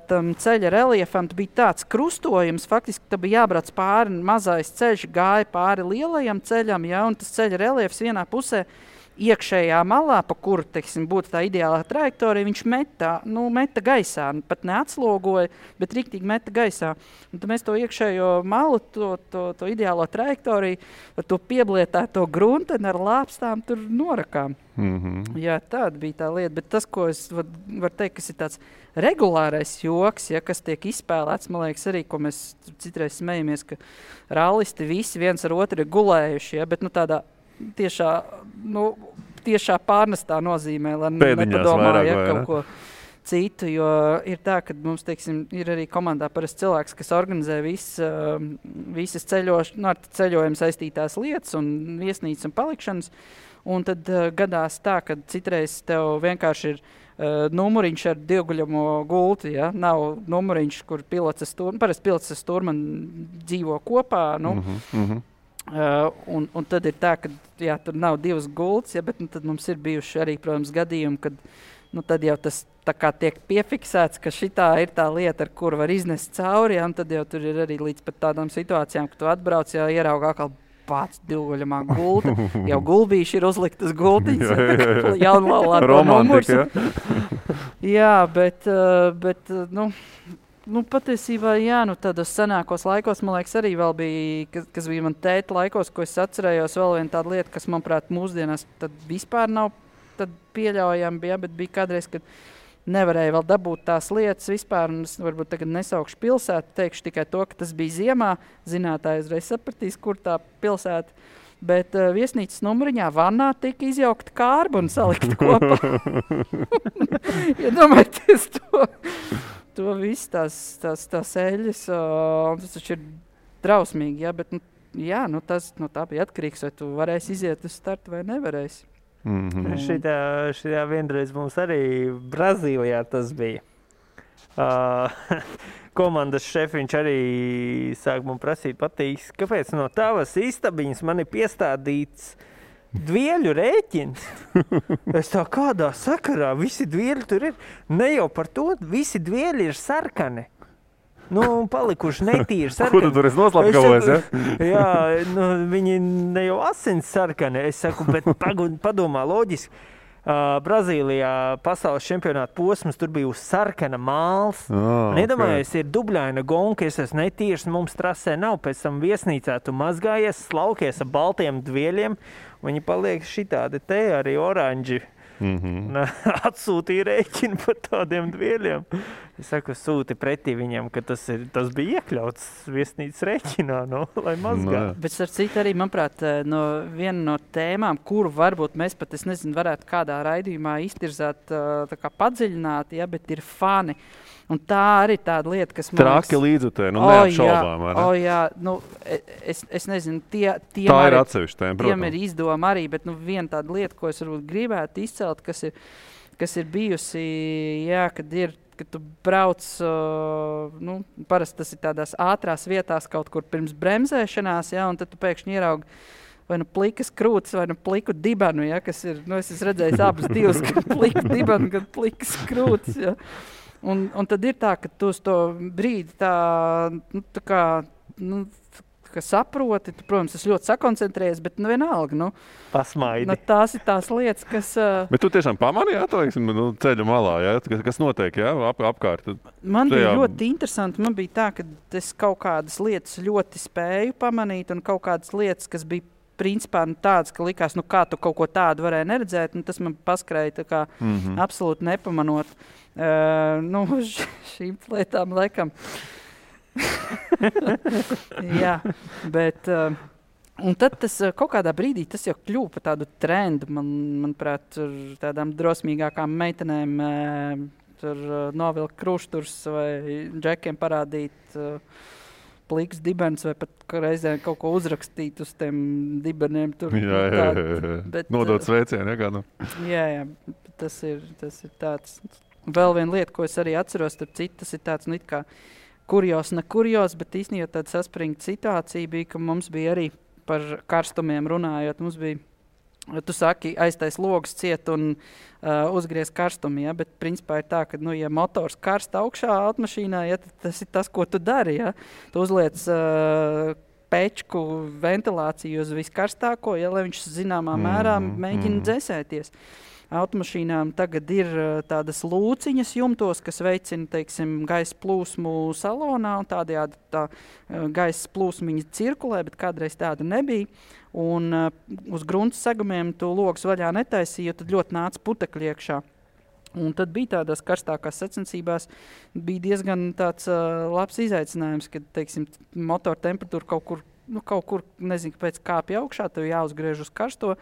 tam ceļa reliefam bija tāds krustojums, faktiski tā bija jābrauc pāri, mazais ceļš gāja pāri lielajam ceļam, un tas ceļa reliefs vienā pusē iekšējā malā, pa kuru, būtu tā ideālā trajektorija, viņš meta gaisā, pat neatslogoja, bet riktīgi meta gaisā. Un tad mēs to iekšējo malu, to ideālo trajektoriju, ar to pieblietēto grunteni ar lāpstām tur norakām. Mm-hmm. Jā, tāda bija tā lieta, bet tas, ko es varu teikt, kas ir tāds regulārais joks, kas tiek izspēlēts, man liekas arī, ko mēs citreiz smejamies, ka rallisti visi viens ar otru ir gulējuši, bet tādā tiešā pārnestā nozīmē, lai nepadomā, kaut ko citu, jo ir tā, ka mums, ir arī komandā parasti cilvēks, kas organizē visas ceļojumu saistītās lietas un viesnīcas un palikšanas, un tad gadās tā, ka citreiz tev vienkārši ir numuriņš ar divguļamo gulti, nav numuriņš, kur parasti pilots ar stūrmani dzīvo kopā, un tad ir tā, ka tur nav divas gultas, bet tad mums ir bijuši arī, protams, gadījumi, kad tad jau tas tā kā tiek piefiksēts, ka šitā ir tā lieta, ar kuru var iznest cauri, un tad jau tur ir arī līdz pat tādām situācijām, ka tu atbrauc, ierauga atkal pats divguļamā gulta, jau gulbīši ir uzliktas gultiņas, jaunlaulāto numurs. Jā, bet patiesībā, tādos senākos laikos, man liekas, arī vēl bija, kas bija man tēta laikos, ko es atcerējos, vēl viena tāda lieta, kas, manuprāt, mūsdienās tad vispār nav pieļaujama, bet bija kādreiz, kad nevarēja vēl dabūt tās lietas vispār, un es varbūt tagad nesaukšu pilsētu, teikšu tikai to, ka tas bija ziemā, zinātāji uzreiz sapratīs, kur tā pilsēta, bet viesnīcas numuriņā vannā tika izjaukta kārba un salikta kopā. Iedomājieties to viss tās eļas, tas taču ir drausmīgi, bet tā bija atkarīgs, vai tu varēsi iziet uz startu vai nevarēsi. Mm-hmm. Šitā vienreiz mums arī Brazīlijā tas bija. Komandas šefiņš arī sāk man prasīt patīs, kāpēc no tavas istabiņas man ir piestādīts dvieļu rēķins. Es tā kādā sakarā, visi dvieļi tur ir. Ne jau par to, visi dvieļi ir sarkani. Palikuši netīri sarkani. Kur tu tur esi noslapkavojies, Jā, viņi ne jau asins sarkani. Es saku, bet padomā loģiski. Brazīlijā pasaules čempionāta posms, tur bija uz sarkana māls. Nedomājies, ir dubļaina gonka, es esmu netīrs, mums trasē nav, pēc tam viesnīcā tu mazgājies, slaukies ar baltiem dvieļiem, viņi paliek šitādi te arī oranži. Atsūtīja rēķinu par tādiem dvieļiem. Es saku, sūti pretī viņam, ka tas bija iekļauts viesnīcas rēķinā, lai mazgā. Bet ar citu arī, manuprāt, viena no tēmām, kuru varbūt mēs pat, varētu kādā raidījumā iztirzāt, tā kā padziļināt, bet ir fani. Un tā arī tāda lieta, kas man Traki līdzutē, neapšaubām. Es nezinu, tie tā ir atsevišķi tēma, protams. Tiem ir izdoma arī, bet viena tāda lieta, ko es varbūt gribētu izcelt, kas ir bijusi, kad tu brauc, parasti tas ir tādās ātrās vietās kaut kur pirms bremzēšanās, un tad tu pēkšņi ieraugi vai plikas krūtis, vai pliku dibenu, kas ir, es esmu redzējis abas divas, gan pliku dibenu, gan plikas krūtis, Un tad ir tā, ka tu uz to brīdi ka saproti, tu, protams, es ļoti sakoncentrējies, bet vienalga, Pasmaidi. Tās ir tās lietas, kas... Bet tu tiešām pamanīji, ceļa malā, kas notiek, apkārt? Man bija ļoti interesanti, man bija tā, ka es kaut kādas lietas ļoti spēju pamanīt un kaut kādas lietas, kas bija principā tāds, ka likās, kā tu kaut ko tādu varēji neredzēt, tas man paskrēja tā kā absolūti nepamanot. Šīm lietām laikam. Jā, bet... Un tad tas kaut kādā brīdī tas jau kļuva par tādu trendu, manuprāt, tur tādām drosmīgākām meitenēm tur novilkt krušturs vai džekiem parādīt pliks dibens vai pat reizēm kaut ko uzrakstīt uz tiem dibeniem. Tur, jā. Nodot sveicienu, kādu. Jā, tas ir tāds. Vēl viena lieta, ko es arī atceros, tas ir tāds, it kā kurjos, ne kurjos, bet īstenībā tāda saspringta situācija bija, ka mums bija arī par karstumiem runājot, mums bija, tu saki, aiztais logs ciet un uzgriez karstumu, ja? Bet principā ir tā, ka, ja motors karsta augšā automašīnā, ja, tas ir tas, ko tu dari, ja? Tu uzliec pečku ventilāciju uz viskarstāko, ja, lai viņš zināmā mērā mēģina dzēsēties. Automašīnām tagad ir tādas lūciņas jumtos, kas veicina, teiksim, gaisa plūsmu salonā, un tādējādi tā gaisa plūsmiņa cirkulē, bet kādreiz tāda nebija. Un uz grunts segumiem tu logus vaļā netaisīji, jo tad ļoti nāca putekļi iekšā. Un tad bija tādās karstākās sacensībās, bija diezgan tāds labs izaicinājums, kad, teiksim, motora temperatūra kaut kur, nezinu, pēc kāpja augšā, tev jāuzgriež uz karsto.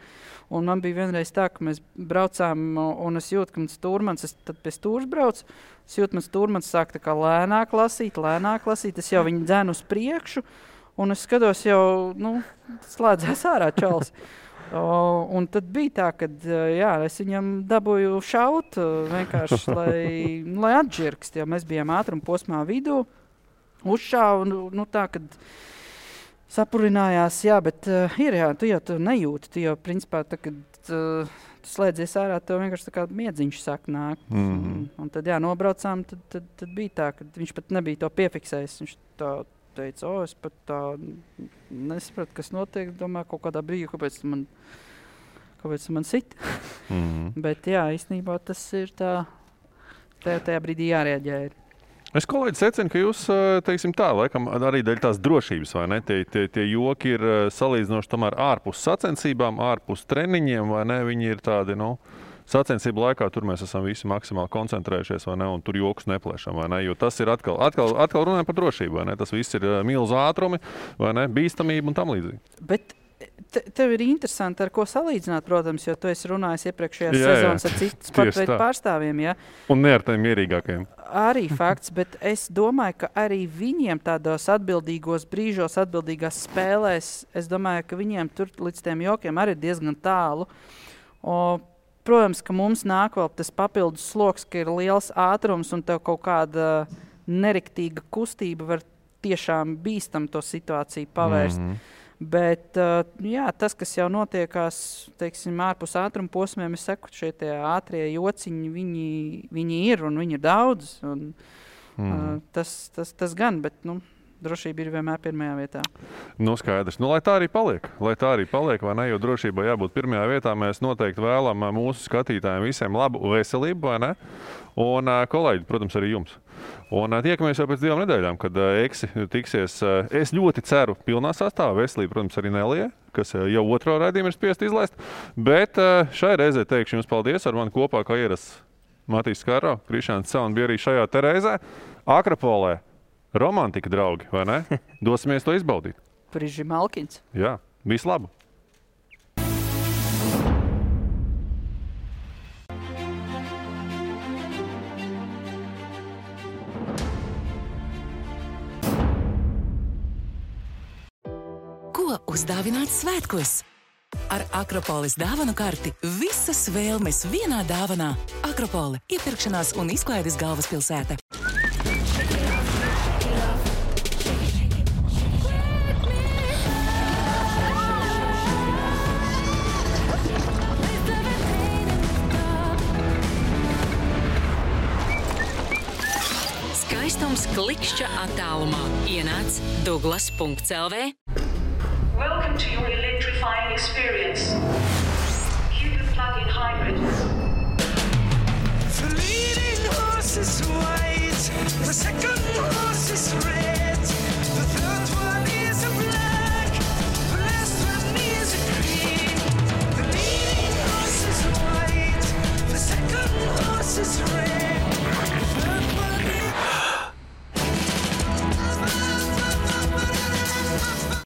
Un man bija vienreiz tā, ka mēs braucām, un es jūtu, ka mans stūrmans, es tad pie stūrs braucu, es jūtu, mans stūrmans sāk tā kā lēnāk lasīt, es jau viņu dzēnu uz priekšu, un es skatos jau, slēdzēs ārā čals. Un tad bija tā, ka es viņam dabūju šaut vienkārši, lai atžirkst, jo mēs bijām ātruma posmā vidū, uzšāvu, tā, kad sapurinājās, bet tu jau nejūti, tu jau principā, kad tu slēdzies ārā, tev vienkārši tā kā miedziņš sāk nākt. Un tad, nobraucām, tad bija tā, ka viņš pat nebija to piefiksējis. Viņš tā teica, es pat tā nesapratu, kas notiek, domāju, kaut kādā brīdī, kāpēc man sit. Bet īstenībā tas ir tā, tajā brīdī jārēģē ir. Es kolēģi secinu, ka jūs, teiksim tā, laikam arī dēļ tās drošības, vai ne? Tie joki ir salīdzinoši tomēr ārpus sacensībām, ārpus treniņiem, vai ne? Viņi ir tādi, sacensību laikā tur mēs esam visi maksimāli koncentrējušies, vai ne? Un tur jokus neplēšam, vai ne? Jo tas ir atkal runājam par drošību, vai ne? Tas viss ir milzu ātrumi, vai ne? Bīstamība un tam līdzīgi. Bet tev ir interesanti, ar ko salīdzināt, protams, jo tu esi runājis iepriekšējās sezonas ar citu sportveidu pārstāvjiem, ja? Un ne ar tiem mierīgākajiem. Arī fakts, bet es domāju, ka arī viņiem tādos atbildīgos brīžos, atbildīgās spēlēs, es domāju, ka viņiem tur līdz tiem jokiem arī diezgan tālu. Protams, ka mums nāk vēl tas papildus sloks, ka ir liels ātrums un tev kaut kāda neriktīga kustība var tiešām bīstam to situāciju pavērst. Bet tas, kas jau notiekās, teiksim, ārpus ātruma posmiem, es saku, šie tie ātrie jociņi, viņi ir un viņi ir daudz. Un, tas gan, bet drošība ir vienmēr pirmajā vietā. Skaidrs. Lai tā arī paliek, vai ne? Jo drošībai jābūt pirmajā vietā. Mēs noteikti vēlam mūsu skatītājiem visiem labu veselību, vai ne? Un kolēģi, protams, arī jums. Un tiekamies jau pēc 2 nedēļām, kad Eksi tiksies, es ļoti ceru, pilnā sastāvā. Veselība, protams, arī Nelija, kas jau otro raidījumu ir spiest izlaist. Bet šai reizē teikšu jums paldies, ar mani kopā, kā ierasts Matīs Skāro, Krišāns Cēln bija arī šajā te reizē. Akropolē romantika, draugi, vai ne? Dosimies to izbaudīt. Priži Malkins. Jā, visu labu! Ko uzdāvināt svētkos? Ar Akropolis dāvanu karti visas vēlmes vienā dāvanā. Akropole – iepirkšanās un izklaides galvaspilsēta. Skaistums klikšķa attālumā. Ienāc Douglas.lv. experience. Cupid plug-in hybrid. The leading horse is white. The second